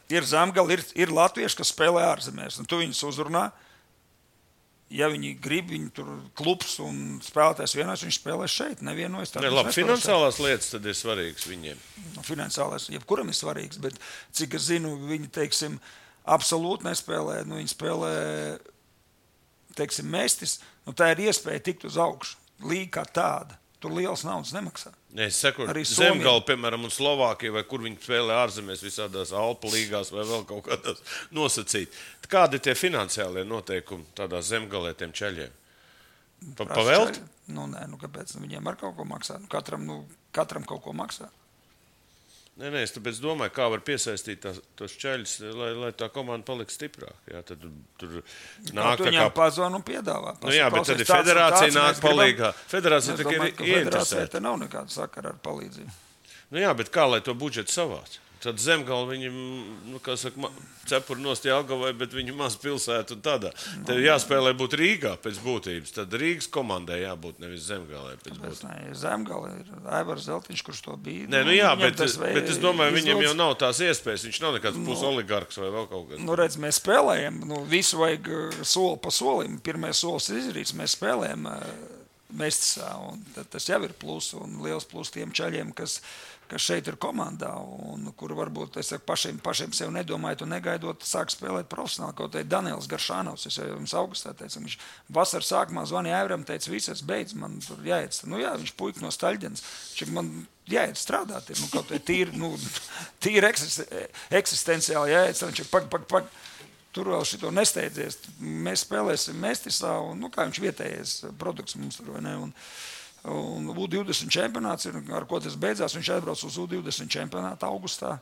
Ir Zemgala, ir latvieši, kas spēlē ārzemēs, un tu viņus uzrunā. Ja viņi grib, viņi tur klubs un spēlētājs vienos, viņš spēlē šeit, nevienojas. Labi, finansiālās lietas tad ir svarīgas viņiem. Finansiālās, jebkuram ir svarīgas, bet cik es zinu, viņi, teiksim, absolūti nespēlē, viņi spēlē, teiksim, Mēstis, tā ir iespēja tikt uz augšu. Līga kā tāda. Tur liels naudas nemaksā. Es saku, Zemgala, piemēram, un Slovākija, vai kur viņi spēlē ārzemēs visādās Alpu līgās vai vēl kaut kādās nosacīt. Kādi tie finansiālie noteikumi tādā Zemgalē tiem čaļiem? Pavelt? Nē, kāpēc? Viņiem ar kaut ko maksā. Katram kaut ko maksā. Nē, es tāpēc domāju, kā var piesaistīt tos čaļus, lai tā komanda paliks stiprāk. Jā, tad tur nāk tā kā... pazvan un piedāvā. Jā, bet tad ir federācija nāk palīgā. Federācija tā ir ieinteresēta. Federācija te nav nekāda sakara ar palīdzību. Jā, bet kā lai to budžetu savāc? Tad Zemgala viņam, cepur nost Jelgavai, bet viņu maz pilsētu un tādā. Tev jāspēlē būt Rīgā pēc būtības. Tad Rīgas komandai jābūt nevis Zemgalē pēc būtības. Zemgala ir Aivars Zeltiņš, kurš to bija. Bet es domāju, viņam jau nav tās iespējas. Viņš nav nekāds pusoligarks vai vēl kaut kas. Redz, mēs spēlējam. Visu vajag soli pa solim. Pirmais solis izdarīts. Mēs spēlējam Mēstisā. Tas jau ir plus un liels plus tiem čaļiem, kas šeit ir komandā, un kur varbūt pašiem sev nedomājot un negaidot, sāk spēlēt profesionāli. Kaut arī Daniels Garšānovs, es jau jums augustā teicu, viņš vasaras sākumā zvanīja Aivaram, teica, visas beidz, man tur jāiet. Viņš puika no Staļģenes, man jāiet strādāt, kaut arī tīri eksistenciāli jāiet, viņš pag. Tur vēl šito nesteidzies. Mēs spēlēsim Mēstisā, un kā viņš vietējais produkts mums tur, vai ne? Un U20 čempionāts, ar ko tas beidzās, viņš atbrauc uz U20 čempionātu augustā.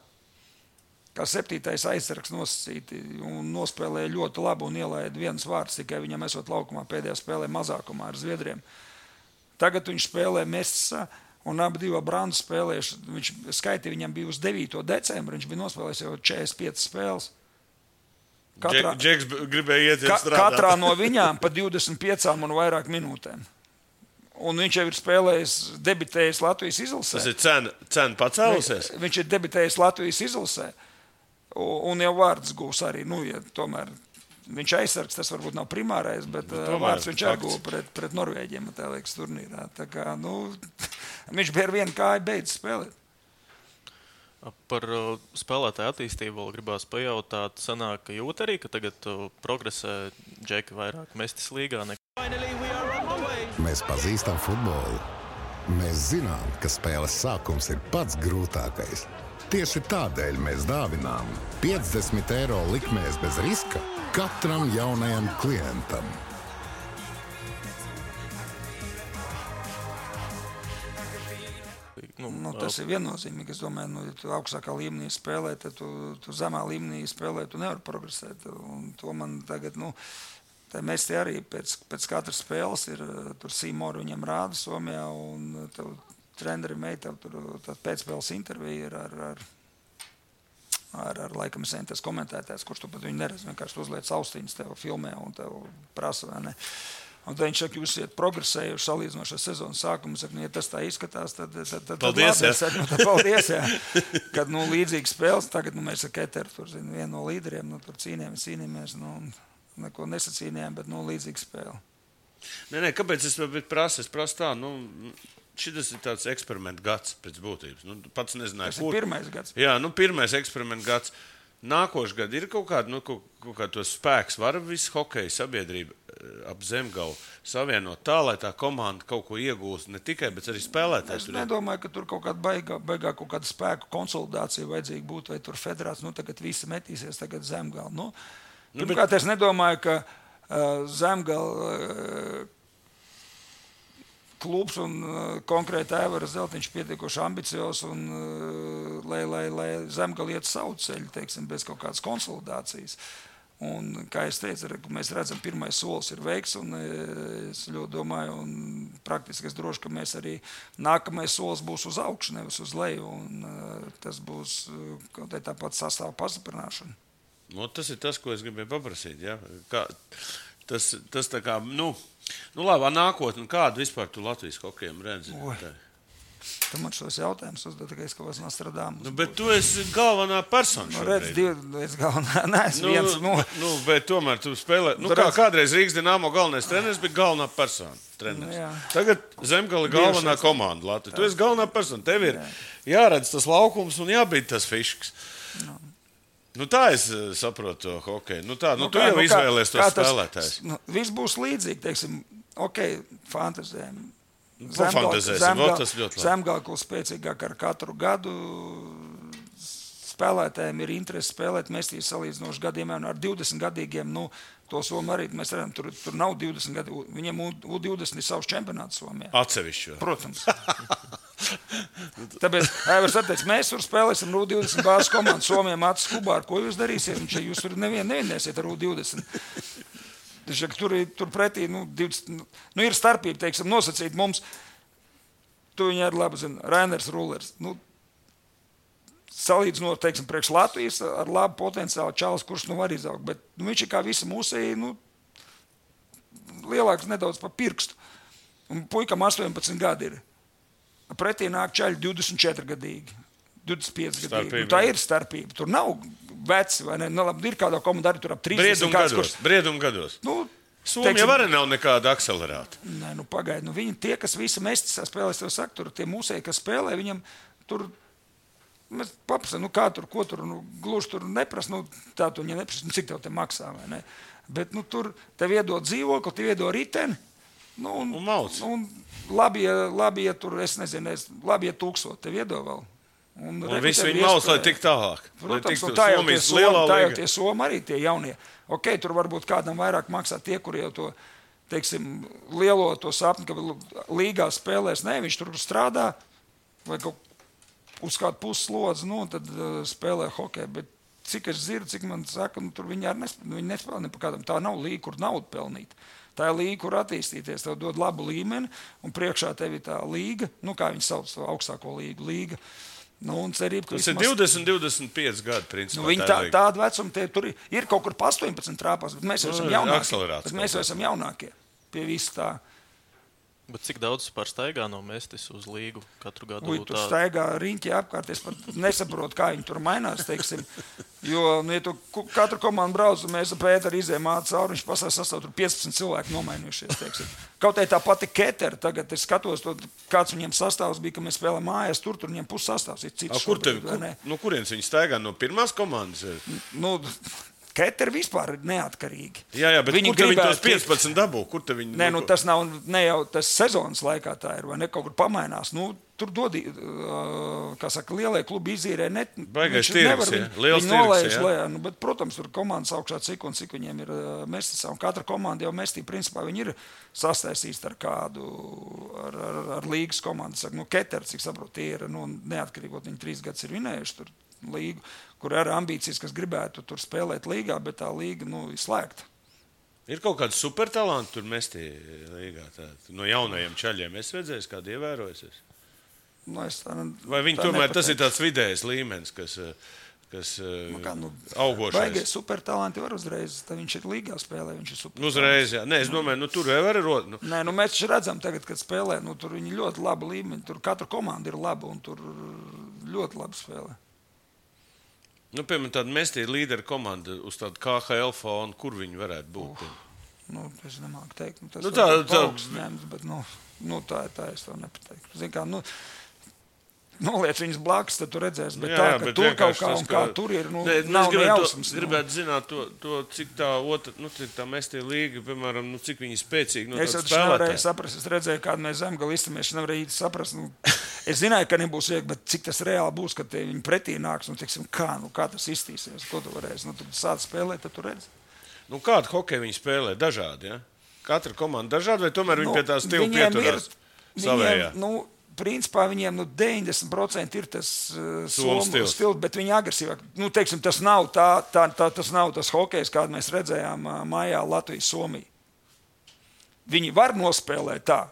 Kā 7. aizsargs nosacīti un nospēlēja ļoti labi un ielaida viens vārds, tikai viņam esot laukumā pēdējā spēlē mazākumā ar Zviedriem. Tagad viņš spēlē Mēstisā un abi divi Brandu spēlējuši. Viņš skaitīja, viņam bija uz 9. decembra, viņš bija nospēlējis jau 45 spēles. Džeks gribēja iet strādāt. Katrā no viņām pa 25 un vairāk minūtēm. Un viņš jau ir spēlējis, debitējis Latvijas izlasē. Tas ir cena pacēlusies? Viņš ir debitējis Latvijas izlasē. Un jau vārds gūs arī. Ja tomēr viņš aizsargs, tas varbūt nav primārais, bet vārds viņš arī gūs pret Norvēģiem, tā liekas, turnīrā. Tā kā, viņš bija ar vienu kāju beidz spēlēt. Par spēlētāju attīstību vēl gribās pajautāt. Sanāk, ka jūt arī, ka tagad progresē Džeki vairāk Mēstis līgā. Mēs pazīstam futbolu. Mēs zinām, ka spēles sākums ir pats grūtākais. Tieši tādēļ mēs dāvinām 50 eiro likmēs bez riska katram jaunajam klientam. Tas ir viennozīmīgi. Es domāju, ja tu augstākā līmenī spēlē, tad tu zemā līmenī spēlē, tu nevari progresēt. Un to man tagad, mēs te arī pēc katras spēles ir, tur Sīmoru viņam rāda Somijā, un tev treneri meita, tur pēcspēles intervija ir ar laikam tas komentētājs, kurš tu pat viņu neredz, vienkārši uzliec austiņas tev filmē un tev prasa, vai ne. Un tad viņš saka, jūs iet progresējuši salīdzinošā sezonas sākumu. Saka, ja tas tā izskatās, tad paldies, labi. Paldies, jā. Kad, līdzīgi spēles, tagad, mēs ar Keteru, tur, vienu no līderiem, tur cīnījāmies, neko nesacīnījām, bet, līdzīgi spēle. Nē, kāpēc es prasu? Es prasu tā, šitas ir tāds eksperimentu gads pēc būtības. Pats nezināju, kur. Tas ir pirmais gads. Jā, pirmais eksperimentu gads. Nākošais gads ir kaut kāda tos spēks, var visu hokeja sabiedrība ap Zemgalu savienot tā, lai tā komanda kaut ko iegūst ne tikai, bet arī spēlētājs. Es nedomāju, ka tur kaut kāda baigā kaut kāda spēku konsolidācija vajadzīga būtu, vai tur federācija, tagad visi metīsies tagad Zemgalu. Pirmkārt, es nedomāju, ka Zemgala klubs un konkrēti Aivaras Zeltiņš pietiekoši ambicios, un lai Zemgala iet savu ceļu, teiksim, bez kaut kādas konsolidācijas. Un, kā es teicu, mēs redzam, pirmais solis ir veikts, un es ļoti domāju, un praktiski es droši, ka mēs arī nākamais solis būs uz augšu, nevis uz leju, un tas būs kaut kā tāpat sastāvu pastiprināšana. Tas ir tas, ko es gribēju paprasīt. Ja? Tas tā kā, labi, nākotnē, kādu vispār tu Latvijas hokejam redzi? Tu man šos jautājumus uzdod, ka es kaut kāds Nostradamus. Bet tu esi galvenā persona šobrīd. Es galvenā, neesmu viens. Bet tomēr tu spēlē, kādreiz Rīgas Dinamo galvenais treneris bija galvenā persona. Tagad Zemgala galvenā komanda Latvija. Tu esi galvenā persona, tev ir jāredz tas laukums un jābīd tas fišks. Tā es saprotu to hokeju. Tu jau izvēlies to spēlētājs. Viss būs līdzīgi, teiksim, fantazējam. Zemgala kļūst spēcīgāk ar katru gadu. Spēlētājiem ir interese spēlēt mestīs salīdzinoši gadiem, un ar 20 gadīgiem, to Somu arī mēs redzam, tur nav 20 gadi. Viņiem U20 ir savs čempionāts Somijā. Atsevišķi. Protams. Tāpēc, Aivars atteic, mēs tur spēlēsim ar U20 bāzes komandu Somijā Mācis Kubāru. Ko jūs darīsiet? Jūs tur nevienēsiet ar U20. Tur pretī ir starpība, teiksim, nosacīt mums. Tu viņu arī labi zini, Rainers Rullers. Salīdzinot, teiksim, priekš Latvijas ar labu potenciālu čalis, kurš var izaugt. Bet viņš ir kā visi mūsēji, lielāks nedaudz pa pirkstu. Un puikam 18 gadi ir. Pretī nāk čaļi 24 gadīgi, 25 gadīgi. Tā ir starpība. Tur nav veci, vai ne? Labi, ir kādā komandā arī tur ap 30 Brieduma gados. Somija arī nav nekāda akcelerāta. Nē, pagaidi. Viņi tie, kas visi mestisā spēlēs, tev saka, tur tie mūsēji, kas spēlē, viņam tur, mēs paprasam, kā tur, ko tur, gluži tur neprasa, tā tu viņam neprasa, cik tev te maksā, vai ne? Bet, tur tev iedod dzīvokli, tev iedod riteni, un mauc. Labi, ja tur, es nezinu, labi, ja 1000 tev iedod vēl. Un visi viņi mauc, lai tik tālāk. Protams, tā jau tie Somi arī tie jaunie. Tur varbūt kādam vairāk maksā tie, kuri jau to, teiksim, lielo to sapni, ka līgā spēlēs. Nē, viņš tur strādā vai uz kādu pusslodzi, tad spēlē hokeju. Bet cik es dzirdu, cik man saka, tur viņi arī nespēlē ne pa kādam. Tā nav līga, kur naudu pelnīt. Tā ir līga, kur attīstīties. Tev dod labu līmeni un priekšā tev ir tā līga, kā viņi sauc to augstāko līga. Cerība, tas ir 20-25 gadi, principā. Viņi tādu vecumu, tur ir kaut kur pa 18 trāpās, bet mēs jau esam jaunākie. Mēs jau esam jaunākie pie visu tā. Bet cik daudz par staigā no mestis uz līgu katru gadu? Tur staigā riņķi apkārt, es pat nesaprotu, kā viņi tur mainās, teiksim. Jo, ja tu katru komandu brauc, mēs ar Pēteru izējām cauri, viņš pasās sastāv, tur 15 cilvēki nomainījušies, teiksim. Kaut tā pati Ketera, tagad es skatos, kāds viņiem sastāvs bija, ka mēs spēlējam mājās, tur viņiem puses sastāvs ir cits. Kurienes viņi staigā no pirmās komandas? Keteri vispār ir neatkarīgi. Jā, bet kur te viņi tos 15 dabū? Nē, tas nav ne jau tas sezonas laikā tā ir, vai ne, kaut kur pamainās. Tur dod, kā saka, lielie klubi izīrē. Baigais tirgs, liels tirgs, jā. Bet, protams, tur komandas augšā cik un cik viņiem ir mestisā. Un katra komanda jau mestī, principā, viņi ir sastaisīts ar kādu, ar līgas komandu. Saka, Keteri, cik saprot, tie ir neatkarīgot. Viņi 3 gadus ir vinējuši tur līgu, kur ir ambīcijas, kas gribētu tur spēlēt līgā, bet tā līga ir slēgta. Ir kaut kāds supertalanti tur mestī līgā? No jaunajiem čaļiem es redzēju, kādu ievērojusies? Vai viņi tomēr tas ir tāds vidējs līmenis, kas augošais? Baigais supertalanti var uzreiz, tad viņš ir līgā spēlē, viņš ir supertalanti. Uzreiz, jā. Nē, es domāju, tur jau var rot. Nē, mēs taču redzam tagad, kad spēlē, tur viņi ļoti labi līmeni, tur katra komanda ir laba un tur ļoti labi spēlē. Piemēram, tāda mestī līdera komanda uz tādu KHL fonu, kur viņi varētu būt? Es nemāku teikt. Tas tā augsts ņemts, bet tā es to nepateiktu. Zin kā, noliec viņas blakus, tad tu redzēsi. Bet Jā, ka bet tur kaut vienkārši kā tas, un kā tur ir, nav nejausmas. Gribētu zināt to, cik tā otra, cik tā mestie līga, piemēram, cik viņi spēcīgi no Es tāda jau nevarēju spēlētāja. saprast, es redzēju, kādu mēs Zemgali iztamies, es nevarēju īsti saprast. Es zināju, ka nebūs viegli, bet cik tas reāli būs, kad viņi pretī nāks, teiksim, kā tas iztīsies, ko tu varēsi. Tad sāc spēlēt, tad tu redzi. Kādu hokeju viņi spēlē? Dažādi, ja? Katra komanda dažādi, vai tomēr viņi pie tā stila pieturās savējā? Principā viņiem 90% ir tas Somu stils, bet viņi agresīvāk. Teiksim, tas nav tas hokejs, kādu mēs redzējām maijā Latvijas-Somija. Viņi var nospēlēt tā,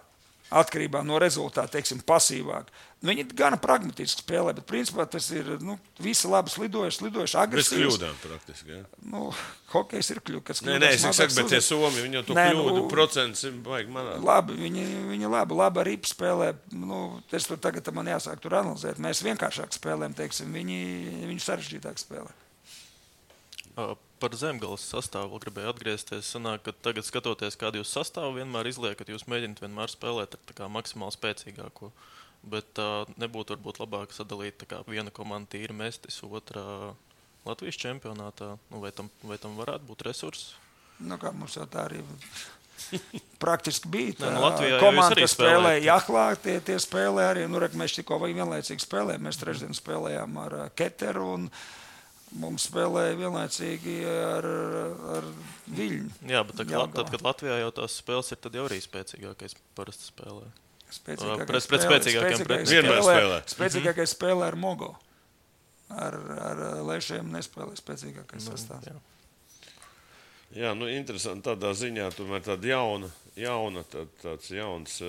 atkarībā no rezultāta, teiksim, pasīvāk. Viņi gana pragmatiski spēlē, bet principā tas ir visi labi slidojuši, agresīvs. Bez kļūdām praktiski, jā. Hokejs ir kļūdas. Nē, es saku, bet tie Somi, viņi jau to kļūdu procents vajag manāt. Labi, viņi labi arī spēlē. Es tur tagad man jāsāk tur analizēt. Mēs vienkāršāk spēlējam, teiksim, viņi sarežģītāk spēlē. Par Zemgales sastāvu gribēju atgriezties. Sanāk, ka tagad skatoties, kādu jūs sastāvu vienmēr izliekat, jūs mēģināt vienmēr spēlēt ar tā kā maksimāli spēcīgāko. Bet nebūtu varbūt labāk sadalīt viena komanda tīri mestis, otrā Latvijas čempionātā. Vai tam varētu būt resursi? Kā mums jau tā arī praktiski bija. Latvijā komanda, kas spēlēja Jahlā, tie spēlē arī. Mēs tikko vienlaicīgi spēlējām. Mēs trešdien spēlējām ar Keteru un mums spēlēja vienlaicīgi ar Viļņu. Jā, bet tad, kad Latvijā jau tās spēles ir, tad jau arī spēcīgākais parasti spēlē. Spēcīgākais spēlē ar Mogo. Ar Lešiem nespēlē spēcīgākais sastāvs. Jā, interesanti tādā ziņā, tomēr tāda tāds jauns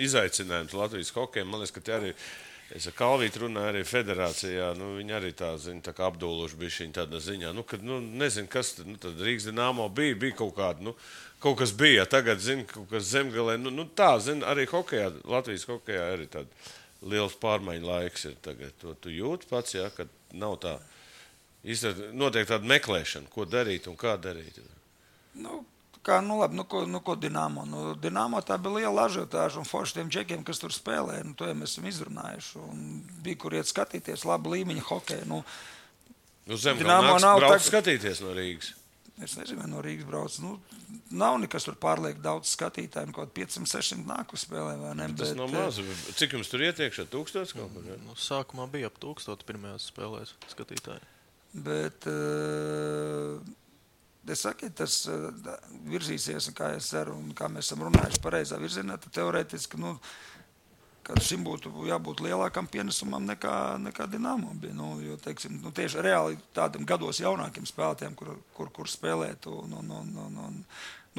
izaicinājums Latvijas hokejam. Man liekas, ka te arī, es ar Kalvītu runāju arī federācijā, viņi arī tā kā apdūluši bišķiņ tādā ziņā. Nezinu, kas tad Rīgas Dinamo bija kaut kāda, kaut kas bija, tagad, kaut kas Zemgalē. Arī hokejā, Latvijas hokejā arī tāda liels pārmaiņu laiks ir tagad. To tu jūti pats, ja, kad nav tā, notiek tāda meklēšana, ko darīt un kā darīt. Ko Dinamo? Dinamo tā bija liela ažiotāža un forši tiem džekiem, kas tur spēlē. To jau mēs esam izrunājuši. Bija, kur iet skatīties labu līmeņa hokeju. Uz Zemgala brauc skatīties no Rīgas. Es nezinu, no Rīgas brauc. Nav nekas tur pārlieku daudz skatītāju. Kaut 500-600 nāk uz spēlē, vai ne? Tas nav maz. Cik jums tur ietiekšā? 1000 kaut kur? Sākumā bija ap 1000 pirmajās spēlēs skatītāji. Bet es saku, tas virzīsies, kā es ceru, un kā mēs esam runājuši pareizā virzienā, tad teorētiski, ka šim būtu jābūt lielākam pienesumam nekā Dinamo bija. Jo, teiksim, tieši reāli tādiem gados jaunākiem spēlētājiem, kur spēlēt.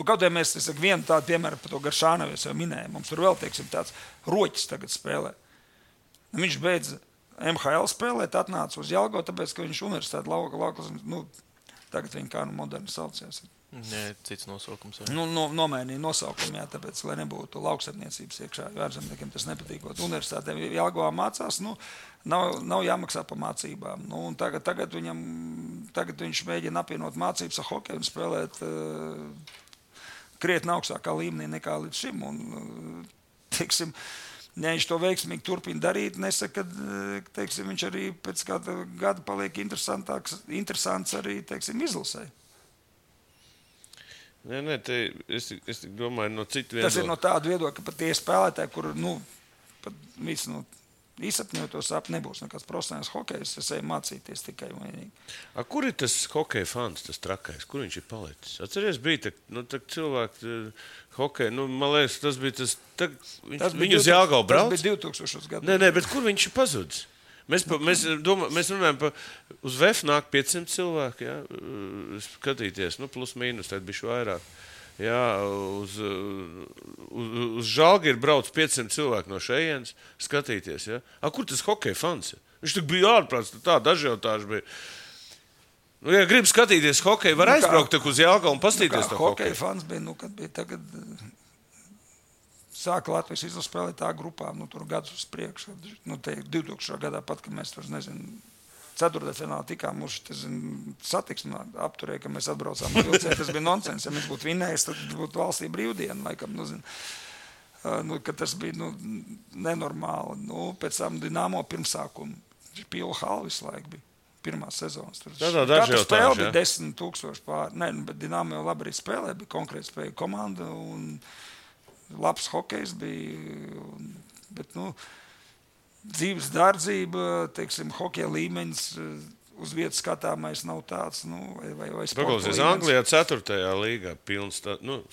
Kaut vai mēs vienu tādu piemēru par to Garšānovu jau minējām. Mums tur vēl, teiksim, tāds Roķis tagad spēlē. Viņš beidz MHL spēlēt, atnāca uz Jelgavu, tāpēc, ka viņš universitāti laukas, tagad viņi kā moderni saucies. Nē, cits nosaukums. Nomainīja nosaukumu, jā, tāpēc, lai nebūtu lauksaimniecības iekšā. Ārzemniekiem tas nepatīkot. Universitātēm Jelgavā mācās, nav jāmaksā par mācībām. Tagad viņš mēģina apvienot mācības ar hokeju un spēlēt krietni augstākā līmenī nekā līdz šim. Teiksim, ja viņš to veiksmīgi turpina darīt, nesaka, ka teiksim, viņš arī pēc kāda gada paliek interesants arī, teiksim, izlasē. Nē, es domāju no citu viedokļa. Tas ir no tāda viedokļa, ka pat tie spēlētāji, kur, pat visi, izsapņot to sapni, nebūs nekāds profesionāls hokejs, es eju mācīties tikai un vienīgi. Kur ir tas hokeja fans, tas trakais? Kur viņš ir palicis? Atceries, bija cilvēki hokeja, man liekas, tas bija tas, viņu uz Jelgavu brauc? Tas bija 2000 gadu. Nē, bet kur viņš ir pazudis? Mēs runājam, uz VF nāk 500 cilvēki, ja, skatīties, plus mīnus, tad bišķi vairāk. Ja, uz Žalgiru brauc 500 cilvēki no šejienes skatīties. Ja. Kur tas hokeja fans ir? Viņš tik bija ārprāts, tāda ažiotāža bija. Ja grib skatīties hokeju, var aizbraukt uz Jelgavu un pastīties to hokeju. Hokeja fans bija, kad bija tagad... Sāka Latvijas izlases spēlēt tā grupā, tur gadus uz priekšu. 2000. gadā pat, kad mēs tur, ceturtdaļfinālā tikām uz satiksmi apturēja, ka mēs atbraucām vilcienu. Tas bija nonsens. Ja mēs būtu vinējis, tad būtu valstī brīvdiena, laikam, ka tas bija nenormāli. Pēc tam Dinamo pirmsākuma pila hala visu laiku bija. Pirmā sezonas. Katra spēle bija 10,000 pār. Nē, bet Dinamo jau labi arī spēlē, bija konkrēti spēja komanda un labs hokejs bija. Bet, dzīves dārdzība, teiksim, hokeja līmenis uz vietas skatāmais nav tāds, vai Paklausies, Anglijā 4. līgā pilns,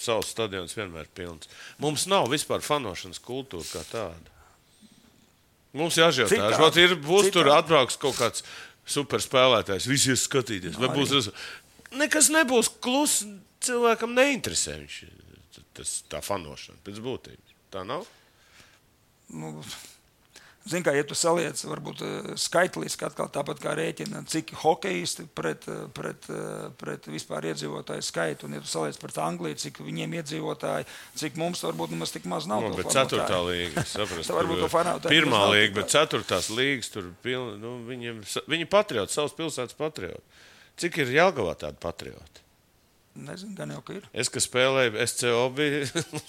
savs stadions vienmēr pilns. Mums nav vispār fanošanas kultūra kā tāda. Mums jāžēltā. Būs tur atbrauks kaut kāds superspēlētājs, visi ies skatīties. Vai būs nekas nebūs klus, cilvēkam neinteresē tā fanošana pēc būtības. Tā nav? Zini, kā, ja tu saliec, varbūt skaitliski atkal tāpat kā rēķina, cik hokejisti pret vispār iedzīvotāju skaitu, un ja tu saliec pret Angliju, cik viņiem iedzīvotāji, cik mums varbūt nemaz tik maz nav. Bet 4. līga, saprast, pirmā līga, bet 4. līgas, tur viņi patrioti, savas pilsētas patrioti. Cik ir Jelgavā tādi patrioti? Nezinu, gan jau, ka ir. Es, ka spēlēju SCO,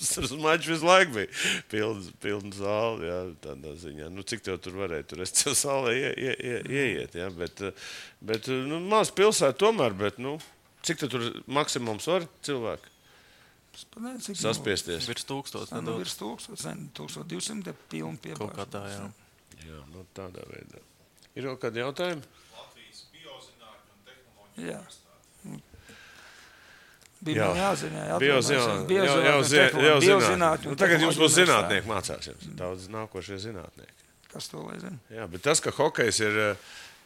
uz maču visu laiku bija pilna zāle, jā, tādā ziņā. Cik tev tur varēja tur SCO zālē ieiet, jā, bet maz pilsēta tomēr, bet, cik tev tur maksimums var cilvēki? Saspiesties. Virs 1000. Virs 1200 pilna piebāža. Kaut kā tā, jā. Jā, tādā veidā. Ir vēl kādi jautājumi? Latvijas biozinātņu un tehnoloģiju. Jā. Bija jāzina, biozinātņu. Tagad jums būs zinātnieki mācās. Daudz nākošie zinātnieki. Kas to lai zina? Jā, bet tas, ka hokejs ir,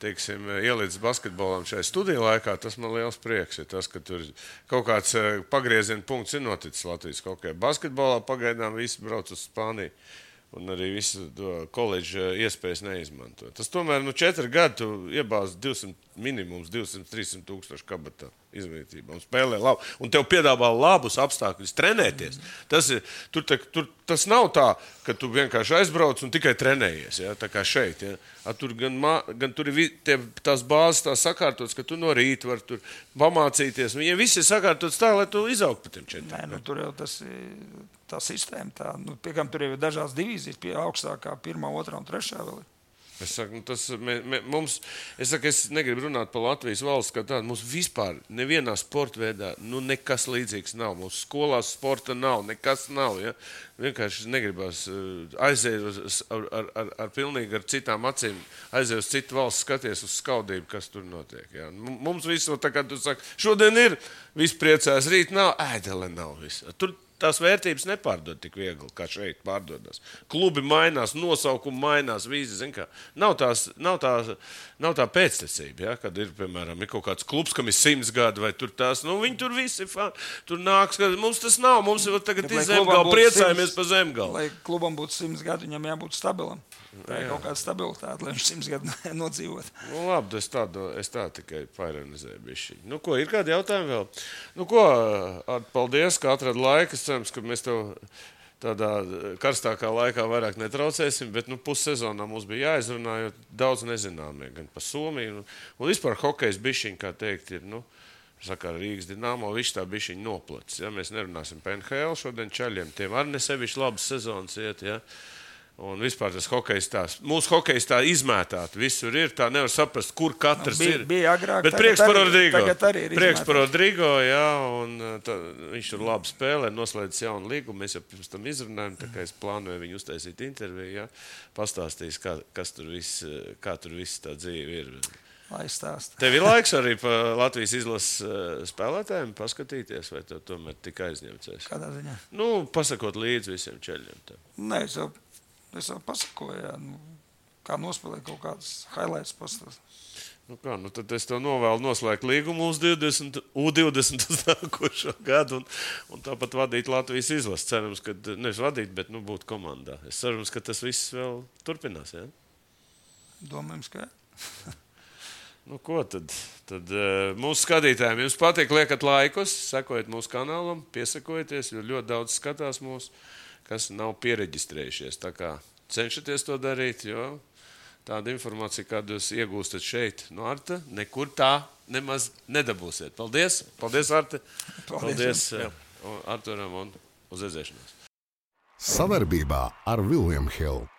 teiksim, ielīdz basketbolam šajā studiju laikā, tas man liels prieks. Ir tas, ka tur kaut kāds pagrieziena punkts ir noticis Latvijas hokejā. Basketbolā pagaidām visi brauc uz Spāniju. Un arī visu koledžu iespējas neizmanto. Tas tomēr 4 gadi tu iebāzi minimums 200-300 tūkstoši kabatā izglītībā un spēlē labi. Un tev piedāvā labus apstākļus trenēties. Tas nav tā, ka tu vienkārši aizbrauc un tikai trenējies, ja? Tā kā šeit. Ja? Tur gan tur ir tās bāzes tā sakārtotas, ka tu no rīta var tur pamācīties. Viņiem viss ir sakārtotas tā, lai tu izaugtu pa tiem 4 gadiem. Tur jau tā sistēma tā. Piekam, tur jau ir dažās divīzijas, pie augstākā 1., 2. un 3. vēl ir. Es saku, es negribu runāt par Latvijas valsts kā tādu. Mums vispār nevienā sporta veidā nekas līdzīgs nav. Mums skolās sporta nav, nekas nav. Ja? Vienkārši negribas aiziet pilnīgi ar citām acīm, aiziet uz citu valsts, skaties uz skaudību, kas tur notiek. Ja? Mums visu, tā kā tu saki, šodien ir, viss priecās, rīt nav, ēdele nav viss. Tur tās vērtības nepārdod tik viegli, kā šeit pārdodas. Klubi mainās, nosaukumi mainās, vīzi, zin kā. Nav tā pēctecība, ja? Kad ir, piemēram, ir kaut kāds klubs, kam ir 100 gadi, vai tur tās, viņi tur visi, tur nāks, mums tas nav, mums jau tagad ir Zemgala, priecājamies par Zemgalu. Lai klubam būtu 100 gadi, viņam jābūt stabilam. Tā ir kaut kāda stabilitāte, lai viņš 100 gadu nodzīvot. Labi, es tā tikai paironizēju bišķiņu. Ko, ir kādi jautājumi vēl? Paldies, ka atrada laiku. Es cerams, ka mēs tev tādā karstākā laikā vairāk netraucēsim, bet pussezonā mums bija jāizrunā, jo daudz nezināmie, gan par Somiju. Un vispār hokejs bišķiņ, kā teikt, ir, saka, Rīgas Dinamo, viss tā bišķiņ noplacis. Ja? Mēs nerunāsim par NHL šodien čaļiem, tiem arī nesevišķi labas sezonas iet, ja? Un vispār tas hokejs tās, mūsu hokejs tā izmētāt, visur ir, tā nevar saprast, kur katrs ir. Bija agrāk, bet prieks par Rodrigo. Tagad arī ir prieks par Rodrigo, jā, un viņš tur labi spēlē, noslēdz jaunu līgumu, mēs jau pirms tam izrunājam, tā kā es plānoju viņu uztaisīt interviju, jā, pastāstīs, kā tur viss tā dzīve ir. Lai stāst. Tev ir laiks arī pa Latvijas izlases spēlētājiem paskatīties, vai tev tomēr tik aizņemcies? Kādā ziņā? Pasakot līdzi visiem čeļiem. Nē, es jau pasakoju, jā, kā nospēlēt kaut kādas highlights pastāst. Tad es tev novēlu noslēgt līgumu uz U20 uz nākošo gadu un tāpat vadīt Latvijas izlases. Cerams, ka nevis vadīt, bet būt komandā. Es cerams, ka tas viss vēl turpinās, jā? Domājams, ka jā. Ko tad mūsu skatītājiem jums patīk, liekat laikus, sekojiet mūsu kanālam, piesakojieties, jo ļoti daudz skatās mūsu, kas nav piereģistrējušies. Tā kā cenšaties to darīt, jo tāda informācija, kādu jūs iegūstat šeit no Arta, nekur tā nemaz nedabūsiet. Paldies! Paldies, Arte! Paldies Arturam un uz redzēšanos! Sadarbībā ar William Hill.